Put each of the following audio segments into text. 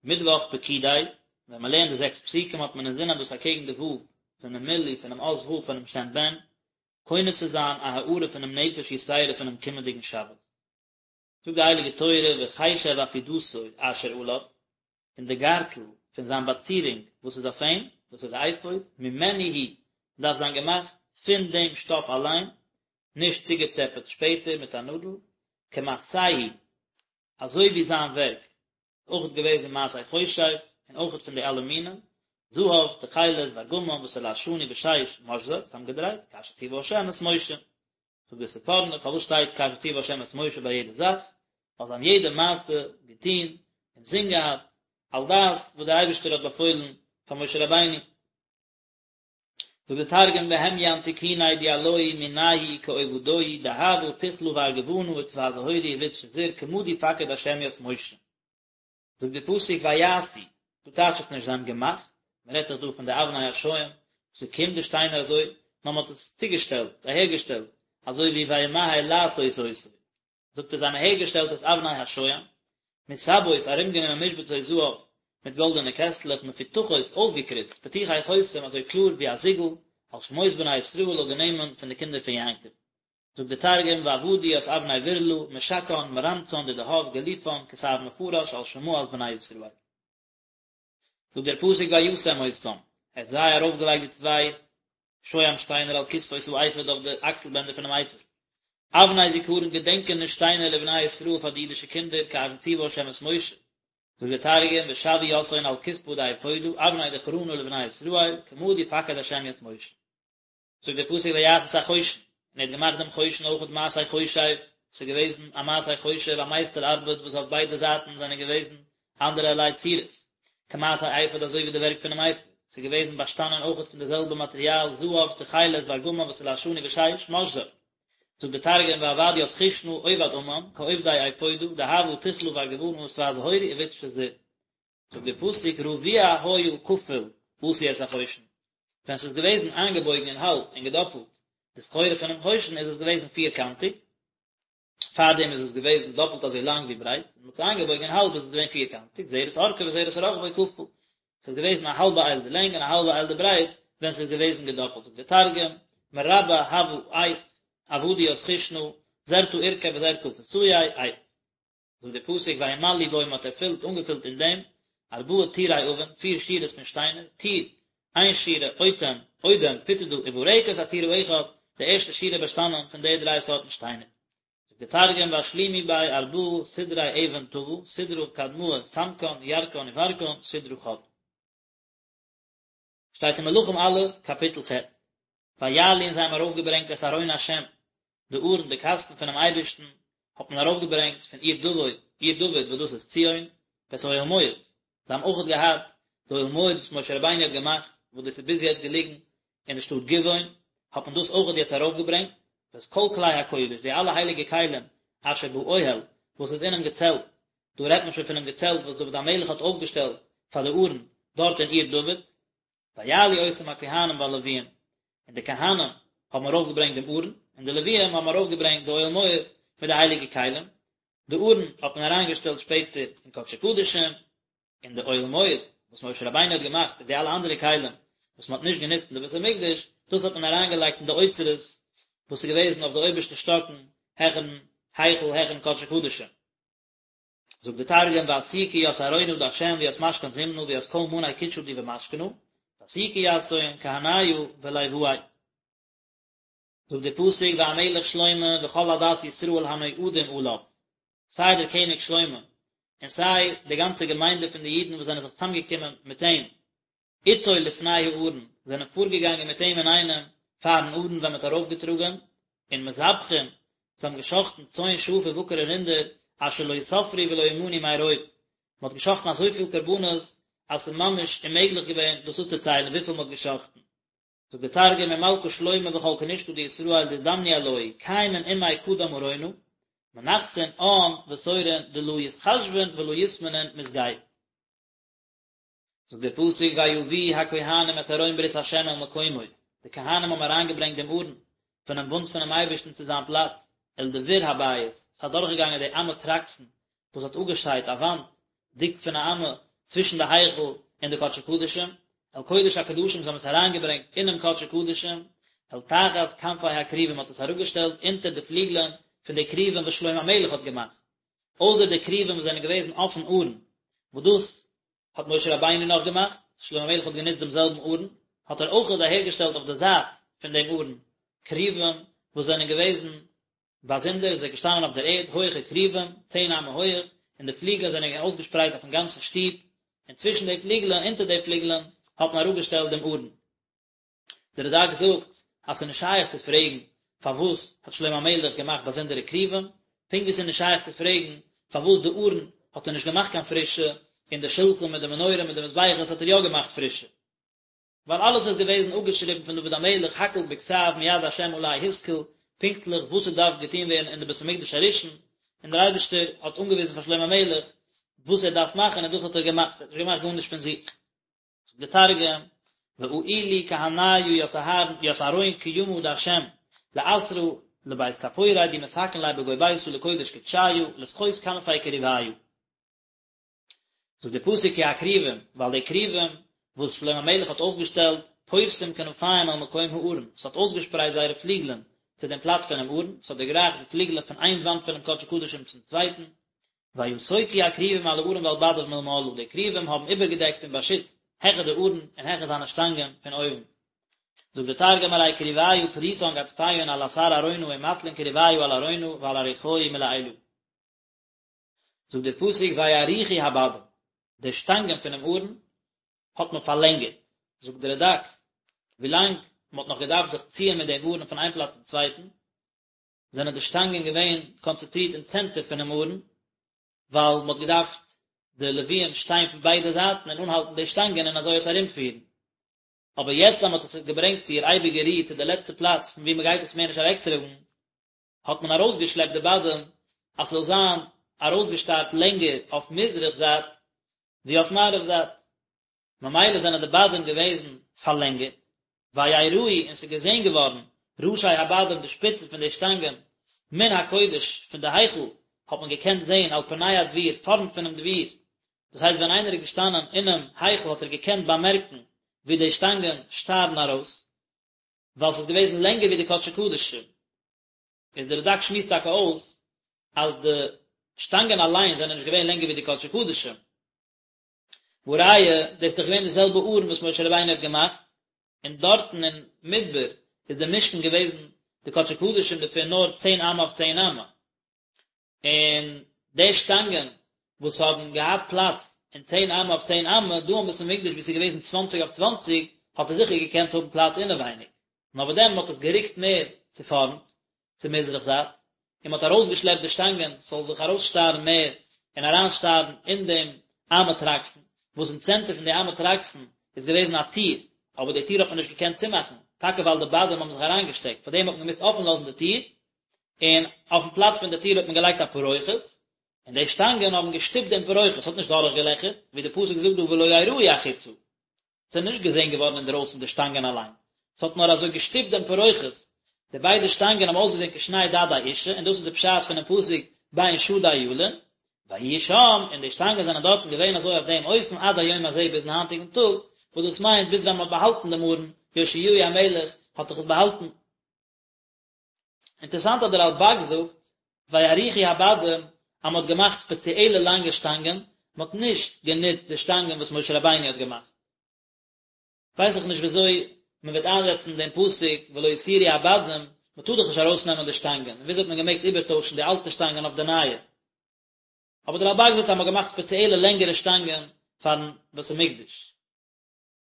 מיטוואך פקודי, ווען מען לערנט די זעקס פסוקים האט מען אינזין אז דאס אקעגן די ו' פונעם מילוי פונעם אות ו' פונעם שם בן, קונה צו זיין א הארה פונעם נפש יתירה פונעם קומענדיגן שבת. זאגט די הייליגע תורה וחשב עפודתו אשר עליו, און די גארטל פון זיין באצירונג וואס איז אויף אים, דאס איז די אפוד, ממנו הוא, דארף זיין געמאכט פון דעם שטאף אליין, נישט צוגעטשעפעט שפעטער מיט א נאדל, כמעשהו, אזוי ווי זיין ווערק, אויכעט געוועזן מעשה חושב, און אויכעט פון די אלע מינים, זהב, תכלת, וארגמן, ותולעת שני ושש, משזר, צוזאמגעדרייט, כאשר ציווה השם את משה. זאגט דער ספורנו, פארוואס שטייט כאשר ציווה השם את משה ביי יעדע זאך? ווייל זיי האבן יעדע מעשה געטון אין זין געהאט, על דעת וואס דער אייבערשטער האט באפוילן פאר משה רבינו. זאגט דער תרגום בהמיין תיקוניה דיעלוהי מנייהו כעובדוהי דהבא תכלא וארגמנא וצבע זהורא ובד שזור כמה די פקיד השם ית משה. זאגט דער פסוק ויעשו, דא טייטשט עס נישט זיי האבן געמאכט, מען רעדט דאך דא פון די אבני השוהם, ס'קומט די שטיינער אזוי, נאר מען האט עס צוגעשטעלט, אהערגעשטעלט, אזוי ווי וימהר לעשות אותו. זאגט ער זיי האבן אהערגעשטעלט את אבני השוהם, מסבות ארומגענומען משבצות זהב מיט גאלדענע קעסטלעך מפותחות אויסגעקריצט פתוחי חותם אזוי קלאר ווי א זיגל, על שמות בני ישראל אויף די נעמען פון די קינדער פון יעקב. זאגט דער תרגום ועבדו ית אבני ברלא משקען מרמצן דדהב גליפן כתב מפרש על שמאת בני ישראל. זאגט דער פסוק וישם אותם, ער האט זיי ארויפגעלייגט די צוויי שוהם שטיינער על כתפות האפוד אויף די אקסל בענדער פונעם אפוד, אבני זכרון געדענקעניש שטיינער לבני ישראל פאר די אידישע קינדער כאשר ציווה ה' את משה, זאגט דער תרגום ושוו יתהון על כתפא דאפודא אבני דכרנא לבני ישראל כמה די פקיד ה' ית משה. זאגט דער פסוק ויעש את החושן, און ער האט געמאכט דעם חושן אויכעט מעשה חושב, ס'איז געוועזן א מעשה חושב, א מייסטער ארבעט וואס אויף ביידע זייטן זענען געוועזן אנדערע ערליי צורות, כמעשה האפוד אזוי ווי די ווערק פונעם אפוד, ס'איז געוועזן באשטאנען אויכעט פון די זעלבע מאטריאל, זהב, תכלת, וארגמן ותולעת שני ושש, משזר. זאגט דער תרגום ועבד ית חושנא עובד אמן, כעובדי אפודא, דהבא תכלא וארגמנא ותבע זהורא ובד שזור. זאגט דער פסוק רבוע היה כפול עשו את החושן, ווען ס'איז געוועזן איינגעבויגן אין האלב און געדאפלט די סחורה פונעם חושן איז עס געוועזן פירקאנטיג, פארדעם איז עס געוועזן דאפלט אזוי לאנג ווי ברייט, און מ'האט עס איינגעבויגן אין האלב איז עס געווען פירקאנטיג, זרת ארכו וזרת רחבו כפול, ס'איז געוועזן א האלבע אייל די לענג און א האלבע אייל די ברייט ווען ס'איז געוועזן געדאפלט, זאגט דער תרגום, מרבע הוה עיף, עבדו ית חושנא, זרתא אורכיה וזרתא כפותיה, עיף. זאגט דער פסוק וימלאו בו מען האט ערפילט אנגעפילט אין דעם ארבעה טורי אבן פיר שורות פון שטיינער טור איין שורה אוטם אודם פוטדא וברקת הטור האחד די ערשטע שורה באשטאנען פון די דריי סארטן שטיינער. זאגט דער תרגום ואשלימו ביה ארבעה סדרי אבן טבא סדרא קדמאה סמקן ירקן וברקן סדרא חד. שטייט אין מלכים א', קאפיטל ח', ויעלו און זיי האבן ארויפגעברענגט את ארון השם, די ארון, די קאסטן פונעם אייבערשטן, האט מען ארויפגעברענגט פון עיר דוד, עיר דוד וואס דאס איז ציון, ואת אוהל מועד, זיי האבן אויכעט געהאט די אוהל מועד וואס משה רבינו האט געמאכט, וואס דאס איז ביז יעצט געליגן אין די שטאט גבעון, האט מען דאס אויכעט יעצט ארויפגעברענגט, ואת כל כלי הקודש, די אלע הייליגע כלים, אשר באוהל, וואס איז אינעם געצעלט, דא רעדט מען שוין פונעם געצעלט וואס דוד המלך האט אויפגעשטעלט פאר די ארון דארט אין עיר דוד, ויעלו אותם הכהנים והלוויים, און די כהנים האבן ארויפגעברענגט דעם ארון, און די לוויים האבן ארויפגעברענגט די אוהל מועד מיט די הייליגע כלים, די ארון האט מען אריינגעשטעלט שפעטער אין קדשי קדשים, און די אוהל מועד וואס משה רבינו האט געמאכט און די אלע אנדערע כלים וואס מען האט נישט גענוצט אין די בית המקדש, דאס האט מען אריינגעלייגט אין די אוצרות וואס איז געוועזן אויף די אויבערשטע שטאקן העכערן היכל העכערן קדשי קדשים. זאגט די תרגום ואסיקו ית ארונא דהשם וית משכן זמנא וית כל מאני קודשא די במשכנא, ואסיקו יתהון כהניא ולואי. זאגט דער פסוק והמלך שלמה וכל עדת ישראל הנועדים עליו, סיי דער קעניג שלמה און סיי די גאנצע געמיינדע פון די אידן וואס זענען זיך צוזאמגעקומען מיט אים, איתו לפני הארון, זענען פארגעגאנגען מיט אים אינאיינעם פארן ארון ווען מען האט ארויפגעטראגען, און מזבחים, זיי האבן געשחטן צאן שאף ובקר און רינדער, אשר לא יספרו ולא ימנו מרוב, מען האט געשחטן אזויפיל קרבנות אז ס'איז ממש אוממעגליך געווען דאס אפצוציילן וויפיל מען האט געשחטן. זאגט דער תרגום ומלכא שלמה וכל כנשתא דישראל דאזדמנו עלוהי קיימין עמיה קדם ארונא, מנחתין עאן ותורין דלא יתחשבון ולא יתמנון מסגי. זאגט דער פסוק ויביאו הכהנים את ארון ברית ה' אל מקומו, די כהנים האבן אריינגעברענגט דעם ארון פונעם בונד פונעם אייבערשטן צו זיין פלאץ, אל דביר הבית, עס איז אדורכגעגאנגען די אמה טרקסין וואס האט אפגעשיידט א וואנט דיק פון א אמה. צווישן די היכל און די קדשי קדשים, אל קודש הקדשים זיי האבן עס אריינגעברענגט אינעם קדשי קדשים, אל תחת כנפי הכרובים מ'האט עס אראפגעשטעלט אונטער די פליגלען פון די כרובים וואס שלמה המלך האט געמאכט, אויסער די כרובים וואס זענען געוועזן אויפן ארון, וואס דאס האט משה רבינו נאך געמאכט, שלמה המלך האט גענוצט דעם זעלבן ארון, האט ער אויכעט אהערגעשטעלט אויף די זייט פון דעם ארון כרובים וואס זענען געוועזן באזונדער, זיי געשטאנען אויף דער ערד, הויכע כרובים, צען אמה הויעך, און די פליגלען זענען געווען אויסגעשפרייט אויפן גאנצן שטוב, און צווישן די פליגלען, אונטער די פליגלען, האט מען אראפגעשטעלט דעם ארון. דער רד"ק זאגט אז ס'איז נישט שייך צו פרעגן פארוואס האט שלמה המלך געמאכט באזונדערע כרובים, פונקט ווי ס'איז נישט שייך צו פרעגן פארוואס די ארון האט ער נישט געמאכט קיין פרישע, און די שלחן מיט די מנורה מיט די מזבחות האט ער יא געמאכט פרישע. ווייל אלעס איז געוועזן אפגעשריבן פון דוד המלך הכל בכתב מיד השם עלי השכיל, פונקטליך וואס ס'דארף געטון ווערן אין די בית המקדש הראשון, און דער אייבערשטער האט אנגעוויזן פאר שלמה המלך וואס ער דארף מאכן און דאס האט ער געמאכט, ער האט נישט געמאכט גארנישט פון זיך. זאגט דער תרגום, ואעילו כהניא ית אהרן ית ארון קימא דהשם לאתרא לבית כפורי די מתקן ליה בגו ביתא לקודש קודשיא לסחות כנפי כרוביא. זאגט דער פסוק כי הכרובים, ווייל די כרובים וואס שלמה המלך האט אויפגעשטעלט, פורסים כנפים אל מקום הארון, ס'האט אויסגעשפרייט זייערע פליגלען צו דעם פלאץ פונעם ארון, ס'האט דערגרייכט די פליגלען פון איין וואנט פונעם קדשי קדשים צום צווייטן, ויסוכו הכרובים על הארון ועל בדיו מלמעלה, די כרובים האבן איבערגעדעקט און באשיצט העכער די ארון און העכער זיינע שטאנגען פון אויבן. זאגט דער תרגום ארי כרוביא פריסן גדפיהון על אתר ארונא ומטלין כרוביא על ארונא ועל אריחוהי מלעילא. זאגט דער פסוק ויאריכו הבדים, די שטאנגען פונעם ארון האט מען פארלענגערט, זאגט דער רד"ק, ווילאנג מען האט נאך געדארפט זיך ציען מיט דעם ארון פון איין פלאץ צום צווייטן, זענען די שטאנגען געווען קאנצענטרירט אין צענטער פונעם ארון, ווייל מען האט געדארפט די לוויים שטיין פון ביידע זייטן און אנהאלטן די שטאנגען און אזוי עס ארומפירן. אבער יעצט אז מען האט עס געברענגט צו איר אייביגע רו, צו די לעצטע פלאץ פון וואו מען גייט עס מער נישט אוועקטראגן, האט מען ארויסגעשלעפט די בדים אז ס'זאל זיין ארויסגעשטארט לענגער אויף מזרח זייט ווי אויף מערב זייט, ממילא זענען די בדים געוועזן פארלענגערט, ויראו און ס'איז געזען געווארן ראשי הבדים די שפיצן פון די שטאנגען מן הקודש פון די היכל האט מען געקענט זען על פני הדביר פארנט פונעם דביר, דאס הייסט ווען איינער איז געשטאנען אינעם היכל האט ער געקענט באמערקן ווי די שטאנגען שטארן ארויס, ווייל ס'איז געוועזן לענגער ווי די קדשי קדשים. איז דער רד"ק שמועסט טאקע אויס אז די שטאנגען אליין זענען נישט געווען לענגער ווי די קדשי קדשים. והא ראיה, דאס איז דאך געווען די זעלבע ארון וואס משה רבינו האט געמאכט, און דארטן אין מדבר איז די משכן געוועזן די קדשי קדשים דערפון נאר צען אמה אויף צען אמה. און די שטאנגען וואס האבן געהאט פלאץ אין צען אמה אויף צען אמה, דא אין בית המקדש וואו ס'איז געוועזן צוואנציג אויף צוואנציג, האט ער זיכער געקענט האבן פלאץ אינעווייניג. נאר וואס דען, מ'האט עס גערוקט מער צו פארנט, צו מזרח זייט, און מ'האט ארויסגעשלעפט די שטאנגען ס'זאל זיך ארויסשטארן מער און אריינשטארן אין דעם אמה טרקסין, וואס אין צענטער פון די אמה טרקסין איז געוועזן א טיר, אבער די טיר האט מען נישט געקענט צומאכן, טאקע ווייל די בדים האבן זיך אריינגעשטעקט, פארדעם האט מען געמוזט אפן לאזן די טיר, און אויפן פלאץ פון די טיר האט מען געלייגט א פרוכת, און די שטאנגען האבן געשטופט דעם פרוכת, ס'האט נישט דורכגעלעכערט, ווי די פסוק זאגט דא ולא יראו החוצה, ס'איז נישט געזען געווארן אינדרויסן די שטאנגען אליין, ס'האט נאר אזוי געשטופט דעם פרוכת, די ביידע שטאנגען האבן אויסגעזען כשני דדי אשה, און דאס איז די פשט פונעם פסוק בין שדי ילין, ויהיו שם, און די שטאנגען זענען דארטן געווען אזוי אויף דעם אופן עד היום הזה ביזן היינטיגן טאג, וואס דאס מיינט ביז ווען מ'האט באהאלטן דעם ארון, יאשיהו המלך האט דאך עס באהאלטן. אינטערעסאנט אז דער רלב"ג זאגט ויאריכו הבדים אז מען האט געמאכט ספעציעלע לאנגע שטאנגען, מען האט נישט גענוצט די שטאנגען וואס משה רבינו האט געמאכט. ווייס איך נישט וויאזוי מען וועט איינזעצן דעם פסוק ולא יסורו הבדים, מען טאר דאך נישט ארויסנעמען די שטאנגען, און וויאזוי האט מען געמעגט איבערטוישן די אלטע שטאנגען אויף די נייע? אבער דער רלב"ג זאגט אז מען האט געמאכט ספעציעלע לענגערע שטאנגען פארן בית המקדש.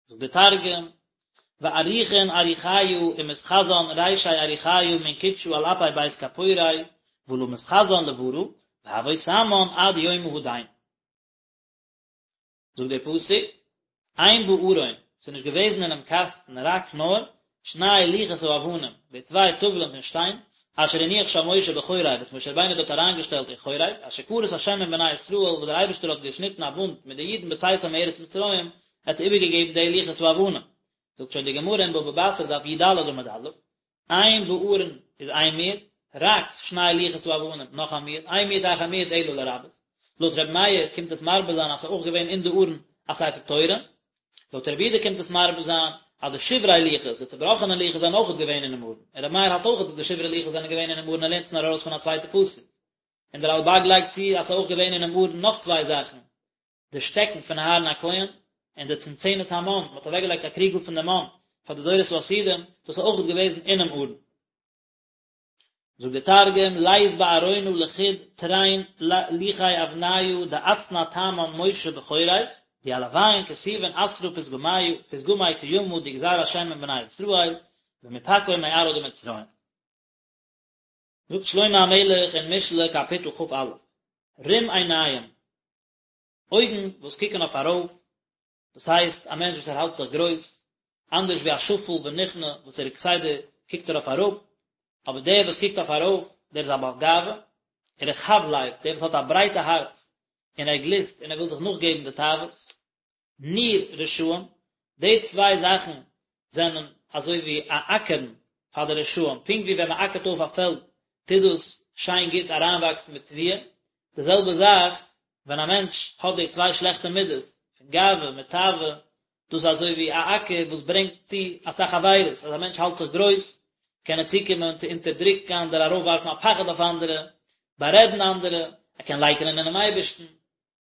זאגט דער תרגום, ואריכון אריחיא ומתחזן רישי אריחיא מן קודשא על אפי בית כפורי ולא מתחזן לברא, והוו תמן עד יומא הדין. זאגט דער פסוק, אין בארון, ס'איז נישט געוועזן אינעם קאסטן רק נאר, שני לוחות האבנים, די צוויי טאוולען פון שטיין, אשר הניח שם משה בחורב, וואס משה רבינו האט דארט אריינגעשטעלט אין חורב, אשר כרת השם עם בני ישראל, וואס דער אייבערשטער האט געשניטן א בונד מיט די אידן בצאתם מארץ מצרים, ער האט זיי איבערגעגעבן די לוחות האבנים. זאגט שוין די גמרא אין בבא בתרא דף י"ד עמוד א', אין בארון איז איין מיעוט, רק שני לוחות האבנים, נאך א מיעוט, אין מיעוט אחר מיעוט אלא לרבות. לויט ר' מאיר קומט עס מרבה זיין אז ס'איז אויך געווען אין די ארון. א ספר תורה. לויט רבי יהודה קומט עס מרבה זיין אז די שברי לוחות, די צובראכענע לוחות זענען אויכעט געווען אינעם ארון, און רבי מאיר האלט אויכעט אז די שברי לוחות זענען געווען אינעם ארון ער לערנט עס נאר ארויס פון א צווייטע פסוק. און דער רלבג לייגט צו אז ס'איז אויך געווען אינעם ארון נאך צוויי זאכן, די שטעקן פון אהרן הכהן, און די צנצנת המן, מען האט אוועקגעלייגט א קריגל פון די מן פאר די דורות העתידים, דאס איז אויכעט געוועזן אינעם ארון. זאגט דער תרגום, לית בארונא לחוד תרין לוחי אבניא דאצנע תמן משה בחורב, דיעלוין כתיבין עתרא פתגמיא פתגמי קימא די גזר השם עם בני ישראל במפקעון מארעא דמצרים. זאגט שלמה המלך אין משלי קאפיטל כ"א, רום עיניים, אויגן וואס קוקן אויף ארויף, דאס הייסט א מענטש וואס ער האלט זיך גרויס, אנדערש ווי א שפל ונכנע וואס ער כסדר קוקט ער אויף אראפ, אבער דער וואס קוקט אויף ארויף, דער איז א בעל גאווה, ורחב לב, דער וואס האט א ברייטע הארץ, און ער גליסט און ער וויל זיך נאכגעבן די תאוות. ניר רשעים, די צוויי זאכן זענען אזוי ווי א אקערן פאר די רשעים, פונקט ווי ווען מען אקערט אויף א פעלד טוט דאס שיין גוט אריינוואקסן מיט תבואה, די זעלבע זאך ווען א מענטש האט די צוויי שלעכטע מידות פון גאווה מיט תאווה, דאס איז אזוי ווי א אקער וואס ברענגט צו אסאך עבירות, אז א מענטש האלט זיך גרויס קען ער צוקומען צו אונטערדרוקן אנדערע, ארויפווארפן א פחד אויף אנדערע, בארעדן אנדערע, ער קען לייקענען אינעם אייבערשטן,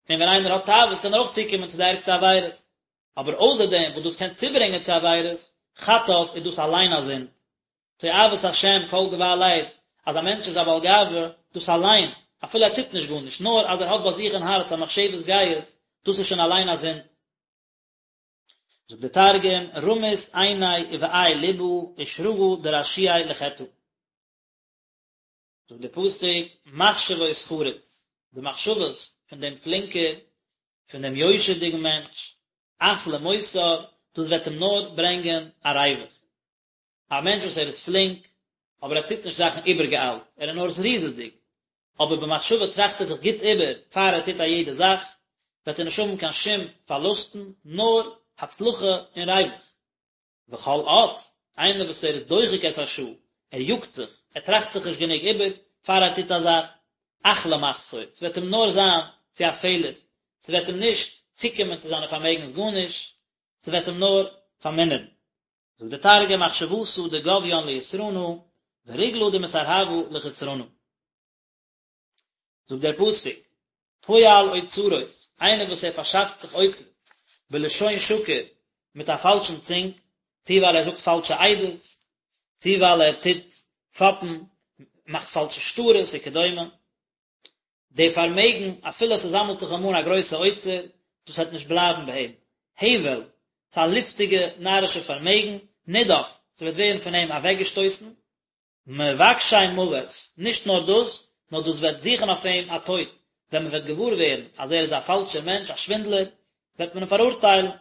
און ווען איינער האט תאוות קען ער אויך צוקומען צו די ערגסטע עבירות. אבער אויסער דעם וואס דאס קען צוברענגען צו עבירות, חטאת איז דאס אליין א זינד. תועבת השם כל גבה לב, אז א מענטש איז א בעל גאווה, דאס אליין, אפילו ער טוט נישט גארנישט, נאר אז ער האט ביי זיך אין הארץ א מחשבת גאות, דאס איז שוין אליין א זינד. זאגט דער תרגום, רמית עיניה ובאי לבא ושרגא דרשיעי לחטאה. זאגט דער פסוק, מחשבות חרוץ, די מחשבות פון דעם פלינקער, פון דעם יושר'דיגן מענטש, אך למותר, דאס וועט אים נאר ברענגען א ריווח. א מענטש וואס ער איז פלינק, אבער ער טוט נישט זאכן איבערגעאיילט, ער איז נאר זריזות'דיג, אבער במחשבה טראכט ער זיך גוט איבער פאר ער טוט א יעדע זאך, וועט ער נישט האבן קיין שום פארלוסטן, נאר הצלחה און ריווח. וכל אץ, איינער וואס ער איז דוחק את השעה, ער יאגט זיך, ער טראכט זיך נישט גענוג איבער פאר ער טוט א זאך, אך למחסור, ס'וועט אים נאר זיין צו א פעלער, ס'וועט אים נישט צוקומען צו זיינע פארמעגנס גארנישט, ס'וועט אים נאר פארמינערן. זאגט דער תרגום מחשבתא דגביין ליתרנא, ורגלא דמסרהבא לחסרנא. זאגט דער פסוק, פועל אוצרות, איינער וואס ער פארשאפט זיך אוצרות, בלשון שקר, מיט א פאלשן צונג, צו ווייל ער זאגט פאלשע עדות, צו ווייל ער טוט פאפן, מאכט פאלשע שטרות וכדומה, די פארמעגן, אפילו עס זאמלט זיך אים אן א גרויסע אוצר, דאס וועט נישט בלייבן ביי אים. הבל, ס'איז א לופטיגע נארישע פארמעגן, נדף, ס'וועט ווערן פון אים אוועקגעשטויסן, מבקשי מוות, נישט נאר דאס, נאר דאס וועט זוכן אויף אים א טויט, ווען מען וועט געוואר ווערן אז ער איז א פאלשער מענטש, א שווינדלער, וועט מען אים פאראורטיילן.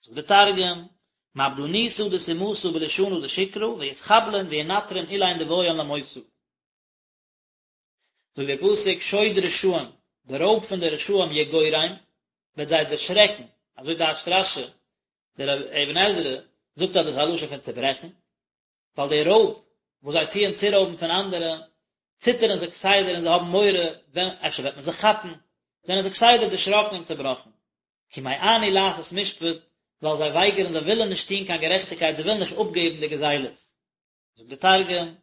זאגט דער תרגום, מעבדנותא דסומתא בלישנא דשקרא, ויתחבלון וינטרון אילין דבעיין למותא. זאגט דער פסוק, שוד רשעים, די רויב פון די רשעים יגורם, וועט זיי דערשרעקן, אזוי טייטשט רש"י, דער אבן עזרא זאגט אז דאס איז א לשון פון צעברעכן, ווייל די רויב וואס זיי טוען צורויבן פון אנדערע, ציטערן זיי כסדר און זיי האבן מורא ווען אפשר וועט מען זיי כאפן, זענען זיי כסדר דערשראקן און צעבראכן. כי מאנו לעשות משפט, ווייל זיי ווייגערן, זיי ווילן נישט טון קיין גערעכטיגקייט, זיי ווילן נישט אפגעבן די גזילות. זאגט דער תרגום,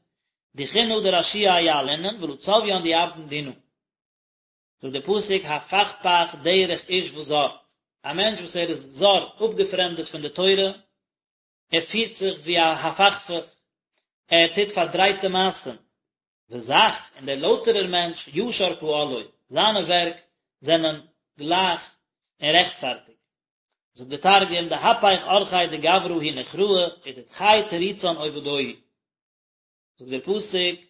דחינא דרשיעי יעלינון ולא צביין דיעבדון דינא. זאגט דער פסוק הפכפך דרך איש וזר, א מענטש וואס ער איז זר, אפגעפרעמדעט פון די תורה, ער פירט זיך ווי א הפכפך, ער טוט פארדרייטע מעשים, וזך, און דער לויטערער מענטש, ישר פעלו, זיינע ווערק זענען גלייך און רעכטפארטיג. זאגט דער תרגום, דהפיך אורחיה דגברא הוא נוכראה, ודדחי תריצן עובדוהי. זאגט דער פסוק,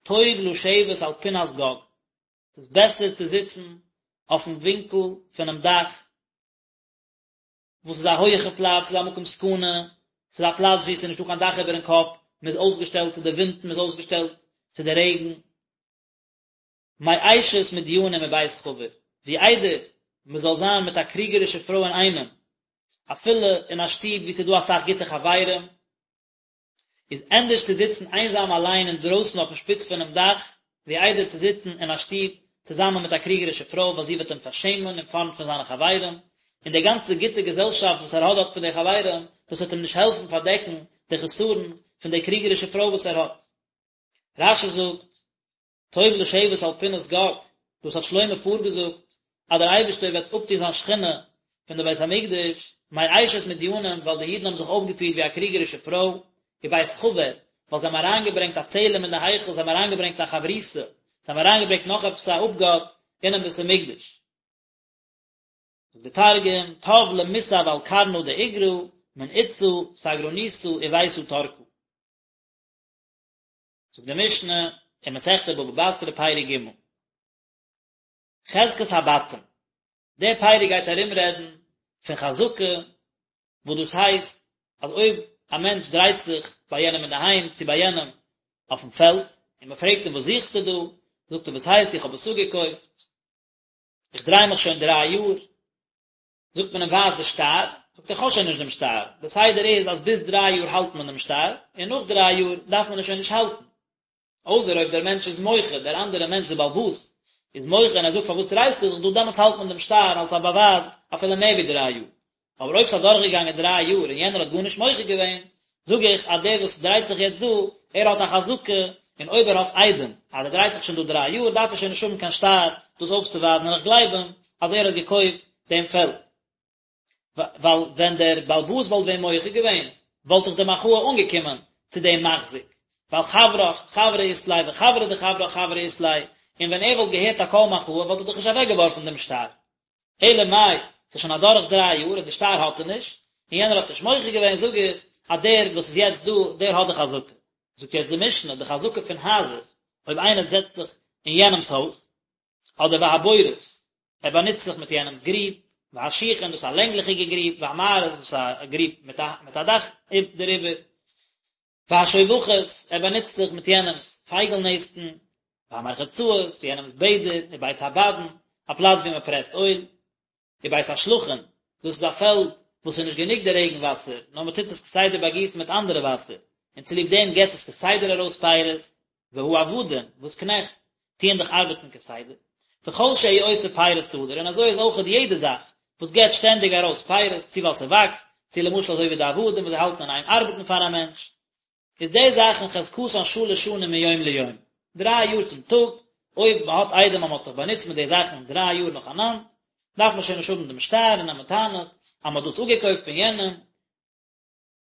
טוב לשבת על פנת גג, ס'איז בעסער צו זיצן אויפן ווינקל פונעם דאך, וואס איז א הויעכע פלאץ, ס'איז א מקום סכנה, ס'איז א פלאץ וואו ס'איז נישטא קיין דאך איבערן קאפ, מ'איז אויסגעשטעלט צו די ווינטן, מ'איז אויסגעשטעלט צו די רעגן. מאשת מדינים ובית חבר, ווי איידער מ'זאל זיין מיט א קריגערישע פרוי אינאיינעם, אפילו אין א שטוב וואו ס'איז דא אסאך גוטע חברים, איז ענדערש צו זיצן איינזאם אליין אינדרויסן אויפן שפיץ פונעם דאך, ווי איידער צו זיצן אין א שטוב צוזאמען מיט א קריגערישע פרוי ווייל זי וועט אים פארשעמען אין פארנט פון זיינע חברים, און די גאנצע גוטע געזעלשאפט וואס ער האט דארט פון די חברים, דאס וועט אים נישט העלפן פארדעקן די חסרון פון די קריגערישע פרוי וואס ער האט. רש"י זאגט, טוב לשבת על פנת גג, דאס האט שלמה פארגעזאגט אז דער אייבערשטער וועט אפטון זיין שכינה פון די בית המקדש, מאשת מדינים, ווייל די אידן האבן זיך אויפגעפירט ווי א קריגערישע פרוי, ובית חבר, ווייל זיי האבן אריינגעברענגט א צלם אין די היכל, זיי האבן אריינגעברענגט א חברותא, זיי האבן אריינגעברענגט נאך עפעס א אפגאט אינעם בית המקדש. זאגט דער תרגום, טב למסב על קרנא דאיגרא, מן אתתא סגרניתא וביתא תרקא. זאגט די משנה אין מסכת בבא בתרא פרק ג', חזקת הבתים, דער פרק גייט ארום רעדן פון חזקה, וואס דאס הייסט אז אויב א מענטש דרייט זיך ביי יענעם אינדערהיים צו ביי יענעם אויפן פעלד, און מען פרעגט אים וואס זוכסטו דא, זאגט ער וואס הייסט איך האב עס אפגעקויפט, איך דריי מיך שוין דריי יאר, זאגט מען אים ווייז די שטר, זאגט ער איך האב שוין נישט דעם שטר, די סדר איז אז ביז דריי יאר האלט מען דעם שטר, און נאך דריי יאר דארף מען עס שוין נישט האלטן, אויסער אויב דער מענטש איז מוחה, דער אנדערער מענטש דער בעל הבית איז מוחה און ער זאגט פארוואס דרייסטו זיך דא, דעמאלטס האלט מען דעם שטר אלס א באווייז אפילו מער ווי דריי יאר, אבער אויב ס'איז אדורכגעגאנגען דריי יאר און יענער האט גארנישט מוחה געווען, זאג איך אז דער וואס דרייט זיך יעצט דא, ער האט א חזקה, און אויב ער האט עדים אז ער דרייט זיך שוין דא דריי יאר, דארף ער שוין נישט האבן קיין שטר דאס אויפצוווייזן און איך גלייב אים אז ער האט געקויפט דעם פעלד. ווייל ווען דער בעל הבית וואלט ווען מוחה געווען, וואלט דאך די מחאה אנגעקומען צו דעם מחזיק, ווייל חברך חברא אית ליה וחברא דחברך חברא אית ליה, און ווען ער וואלט געהערט א קול מחאה וואלט ער דאך נישט אוועקגעווארפן דעם שטר. אלא מאי, ס'איז שוין אדורך דריי יאר און די שטר האט ער נישט, און יענער האט נישט מוחה געווען, זאג איך אז דער וואס איז יעצט דא, דער האט די חזקה. זאגט יעצט די משנה, די חזקה פון הייזער, אויב איינער זעצט זיך אין יענעמ'ס הויז, אדער והבורות, ער באנוצט זיך מיט יענעמ'ס גריב, והשיחין, דאס איז א לענגליכיגע גריב, והמערות, דאס איז א גריב מיט א מיט א דאך דעריבער, והשובכות, ער באנוצט זיך מיט יענעמ'ס פייגל נעסטן, והמרחצאות, יענעמ'ס בעדער, ובית הבדין, א פלאץ וואו מען פרעסט אויל, ובית השלחין, דאס איז א פעלד וואס איז נישט גענוג די רעגן וואסער, נאר מען טוט עס כסדר באגיסן מיט אנדערע וואסער, און צוליב דעם געבט עס כסדר ארויס פירות, והעבדים, וואס קנעכט, טוען דאך ארבעטן כסדר, וכל שהוא עושה פירות תדיר, און אזוי איז אויכעט יעדע זאך וואס געבט שטענדיג ארויס פירות, צו ווייל ס'וואקסט, צו למשל אזוי ווי די עבדים וואס זיי האלטן אין איין ארבעטן פאר א מענטש, איז די זאכן חזקתן שלש שנים מיום ליום, דריי יאר צום טאג, אויב מען האט עדים אז מען האט זיך באנוצט מיט די זאכן דריי יאר נאכאנאנד, דארף מען שוין נישט האבן דעם שטר און אז מען טענה'ט אז מען האט דאס אפגעקויפט פון יענעם,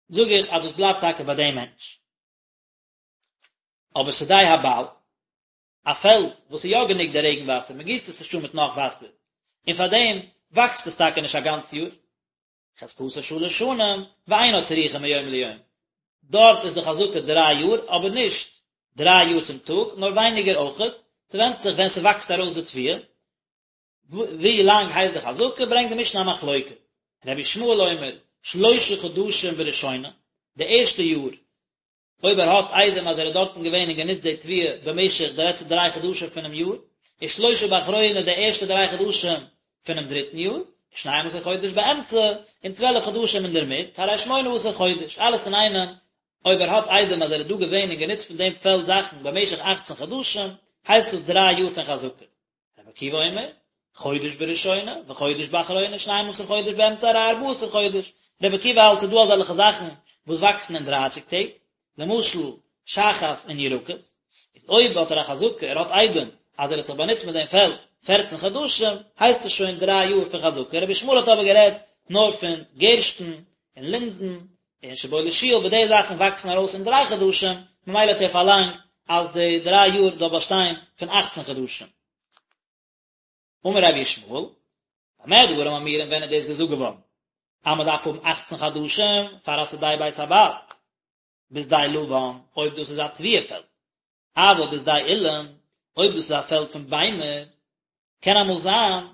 זאג איך אז דאס בלייבט טאקע ביי דעם מענטש. אבער שדה הבעל, א פעלד וואס איז יא גענוג די רעגן וואסער, מען גיסט עס נישט אן מיט נאך וואסער, און פאר דעם וואקסט עס טאקע נישט א גאנץ יאר, חזקתו שלש שנים, ואינה צריכה מיום ליום, דארט איז די חזקה דריי יאר, אבער נישט דריי יאר צום טאג, נאר ווייניגער אויכעט, ס'ווענדט זיך ווען ס'וואקסט ארויס די תבואה, ווי לאנג הייסט די חזקה, ברענגט די משנה א מחלוקה, רבי ישמעאל אומר, שלשה חדשים בראשונה, די ערשטע יאר אויב ער האט עדים אז ער איז דארטן געווען און גענוצט די תבואה במשך די לעצטע דריי חדשים פונעם יאר, ושלושה באחרונה די ערשטע דריי חדשים פונעם דריטן יאר, ושנים עשר חודש באמצע, און צוועלף חדשים אינדערמיט, הרי שמונה עשר חודש, אלעס אינאיינעם, אויב ער האט עדים אז ער איז דא געווען און גענוצט פון דעם פעלד זאכן במשך אכצן חדשים, הייסט דאס דריי יאר פון חזקה. רבי עקיבא אומר, חודש בראשונה, וחודש באחרונה, שנים עשר חודש באמצע הרי ארבעה עשר חודש. רבי עקיבא האלט ס'איז דא אזעלכע זאכן וואס וואקסן אין דרייסיג טעג, למשל שחת און ירקות, איז אויב האט ער א חזקה, ער האט עדים אז ער האט זיך באנוצט מיט דעם פעלד פערצן חדשים, הייסט עס שוין דריי יאר פון חזקה. רבי ישמעאל האט אבער גערעדט נאר פון גערשטן און לינזן און שיבולת שועל, וואס די זאכן וואקסן ארויס אין דריי חדשים, ממילא האט ער פארלאנגט אז די דריי יאר זאל באשטיין פון אכצן חדשים. אמר רבי ישמעאל, במה דברים אמורים ווען איז דאס געזאגט געווארן אז מען דארף האבן אכצן חדשים פאר א שדה בית הבעל, בשדה לבן, אויב דאס איז א תבואה פעלד, אבל בשדה אילן, אויב דאס איז א פעלד פון ביימער, קען אמאל זיין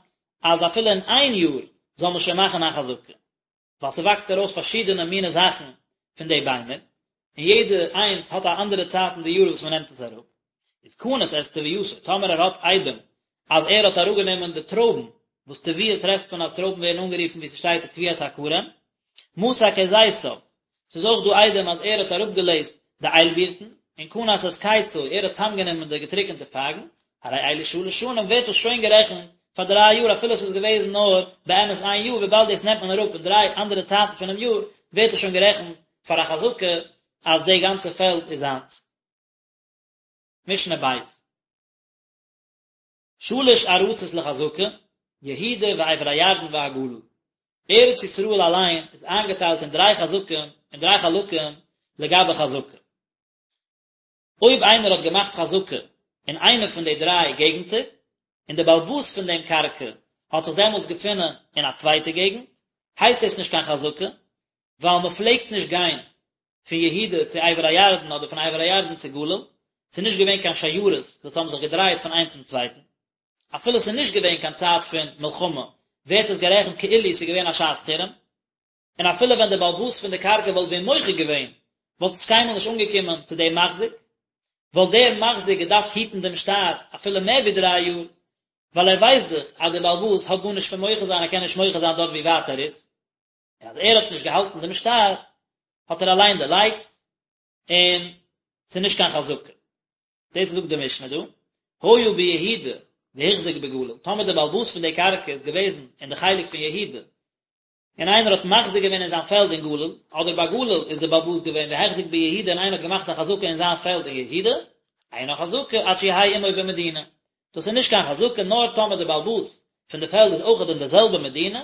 אז אפילו אין איין יאר זאל מען שוין מאכן א חזקה. ווייל ס'וואקסט ארויס פארשידענע מיני זאכן פון די ביימער, און יעדע איינס האט א אנדערע צייט אין די יאר וואס מ'נעמט עס אראפ, איז קנס את תבואתו, טאמער ער האט עדים אז ער האט אראפגענומען די טרויבן, וואס תבואה טרעפט מען אז טרויבן ווערן אנגערופן ווי ס'שטייט ותבואת הכרם, מסק את זיתיו, ס'איז אויך דא עדים אז ער האט אראפגעלעזט די איילבירטן, און קנס את קצו, ער האט צאמגענומען די געטריקענטע פייגן, הרי אלו שלש שנים ווערט דאס שוין גערעכנט. פאר דריי יאר אפילו עס איז געוועזן נאר באמת איין יאר וויבאלד דאס נעמט מען אראפ אין דריי אנדערע צייטן פונעם יאר ווערט עס שוין גערעכנט פאר א חזקה אז די גאנצע פעלד איז זיינס. משנה בית. שלש ארצות לחזקה, יהודה ועבר הירדן והגליל. ארץ ישראל אליין איז איינגעטיילט אין דריי חזקים, אין דריי חלקים לגבי חזקה. אויב איינער האט געמאכט חזקה אין איינע פון די דריי געגנטער, און דער בעל הבית פון דעם קרקע האט זיך דעמאלטס געפונען אין א צווייטע געגנט, הייסט דאס נישט קיין חזקה, ווייל מען פלעגט נישט גיין פון יהודה צו עבר הירדן אדער פון עבר הירדן צו גליל, ס'איז נישט געווען קיין שיירות וואס האבן זיך געדרייט פון איינס צום צווייטן, אפילו ס'איז נישט געווען קיין צייט פון מלחמה, ווערט עס גערעכנט כאילו ס'איז געווען א שעת חירום, און אפילו ווען דער בעל הבית פון די קרקע וואלט ווען מוחה געווען, וואלט עס קיינמאל נישט אנגעקומען צו דעם מחזיק, וואלט דער מחזיק געדארפט היטן דעם שטר אפילו מער ווי דריי יאר, ווייל ער ווייסט דאך אז דער בעל הבית האט גארנישט פון מוחה זיין, ער קען נישט מוחה זיין דארט ווי ווייט ער איז. און אז ער האט נישט געהאלטן דעם שטר, האט ער אליין דערלייגט, און ס'איז נישט קיין חזקה. דאס זאגט די משנה דא, היה ביהודה והחזיק בגליל, טאמער דער בעל הבית פון די קרקע איז געוועזן אין די חלק פון יהודה, און איינער האט מחזיק געווען אין זיין פעלד אין גליל, אדער בגליל איז דער בעל הבית געווען והחזיק ביהודה און איינער האט געמאכט א חזקה אין זיין פעלד אין יהודה, אינה חזקה עד שיהא עמו במדינה, דאס איז נישט קיין חזקה נאר טאמער דער בעל הבית פון די פעלד איז אויכעט אין די זעלבע מדינה,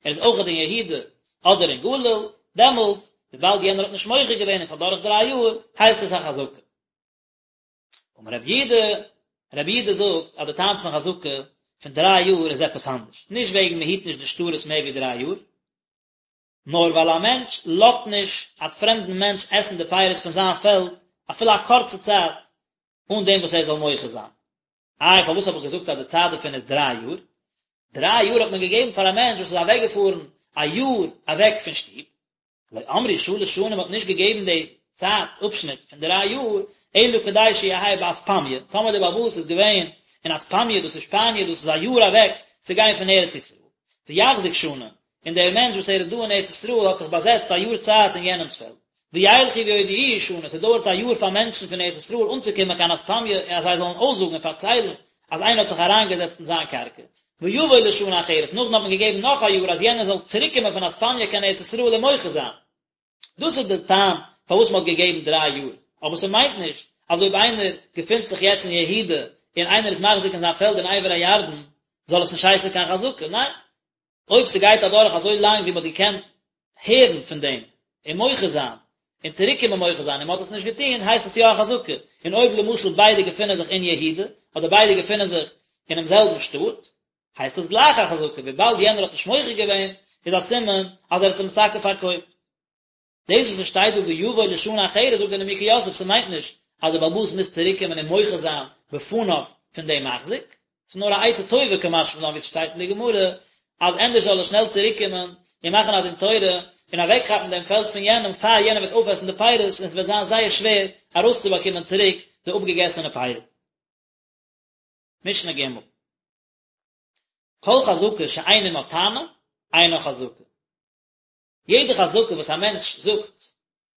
ער איז אויכעט אין יהודה אדער אין גליל, דעמאלטס וויבאלד יענער האט נישט מוחה געווען און ס'איז אדורך דריי יאר, הייסט עס א חזקה. אמר רבי יהודה, רבי יהודה זאגט אז די טעם פון חזקה פון דריי יאר איז עפעס אנדערש, נישט וועגן מען היט נישט די שטרות מער ווי דריי יאר, נאר ווייל א מענטש לאזט נישט א פרעמדן מענטש עסן די פירות פון זיין פעלד אפילו א קורצע צייט אן דעם וואס ער זאל מוחה זיין. איי פארוואס האב איך געזאגט אז די צייט דערפון איז דריי יאר? דריי יאר האט מען געגעבן פאר א מענטש וואס איז אוועקגעפארן א יאר אוועק פון שטוב, לא אמרו שלש שנים מ'האט נישט געגעבן די צייט אפשניט פון דריי יאר, אלא כדי שיהא באספמיא, טאמער דער בעל הבית איז געווען אין אספמיא דאס איז שפאניע דאס איז א יאר אוועק צו גיין פון ארץ ישראל, ויחזיק שנה, און דער מענטש וואס ער איז דא אין ארץ ישראל האט זיך באזעצט א יאר צייט אין יענעמס פעלד, וילכו ויודיעוהו שנה, ס'דויערט א יאר פאר מענטשן פון ארץ ישראל אנצוקומען קיין אספמיא און אז זיי זאלן אויסזאגן און פארציילן אז איינער האט זיך אריינגעזעצט אין זיין קרקע, ויבוא לשנה אחרת, נאכדעם האט מען געגעבן נאך א יאר אז יענער זאל צוריקקומען פון אספמיא קיין ארץ ישראל און מוחה זיין. דאס איז די טעם פארוואס מען האט געגעבן דריי יאר, אבער ס'מיינט נישט אז אויב איינער געפינט זיך יעצט אין יהודה און איינער איז מחזיק אין זיין פעלד אין עבר הירדן זאל עס נישט הייסן קיין חזקה, ניין, אויב ס'גייט אדורך אזוי לאנג ווי מ'האט געקענט הערן פון דעם און מוחה זיין און צוריקקומען מוחה זיין און מ'האט עס נישט געטון הייסט עס יא א חזקה, און אויב למשל ביידע געפינען זיך אין יהודה אדער ביידע געפינען זיך אינעם זעלבן שטאט הייסט עס גלייך א חזקה, וויבאלד יענער האט נישט מוחה געווען איז א סימן אז ער האט אים עס טאקע פארקויפט. דאס וואס עס שטייט דא ויבוא לשנה אחרת זאגט דער נימוקי יוסף ס'מיינט נישט אז דער בעל הבית מוז צוריק קומען און מוחה זיין בפניו פון דעם מחזיק, ס'איז נאר א עצה טובה קא משמע לן ווי עס שטייט אין די גמרא אז ענדערש זאל ער שנעל צוריק קומען און מאכן א דין תורה און אוועק כאפן דעם פעלד פון יענעם פאר יענער וועט אויפעסן די פירות און עס וועט זיין זייער שווער ארויסצובאקומען צוריק די אפגעגעסענע פירות. משנה ג' כל חזקה שאין עמה טענה, אינה חזקה. יעדע חזקה וואס א מענטש זאגט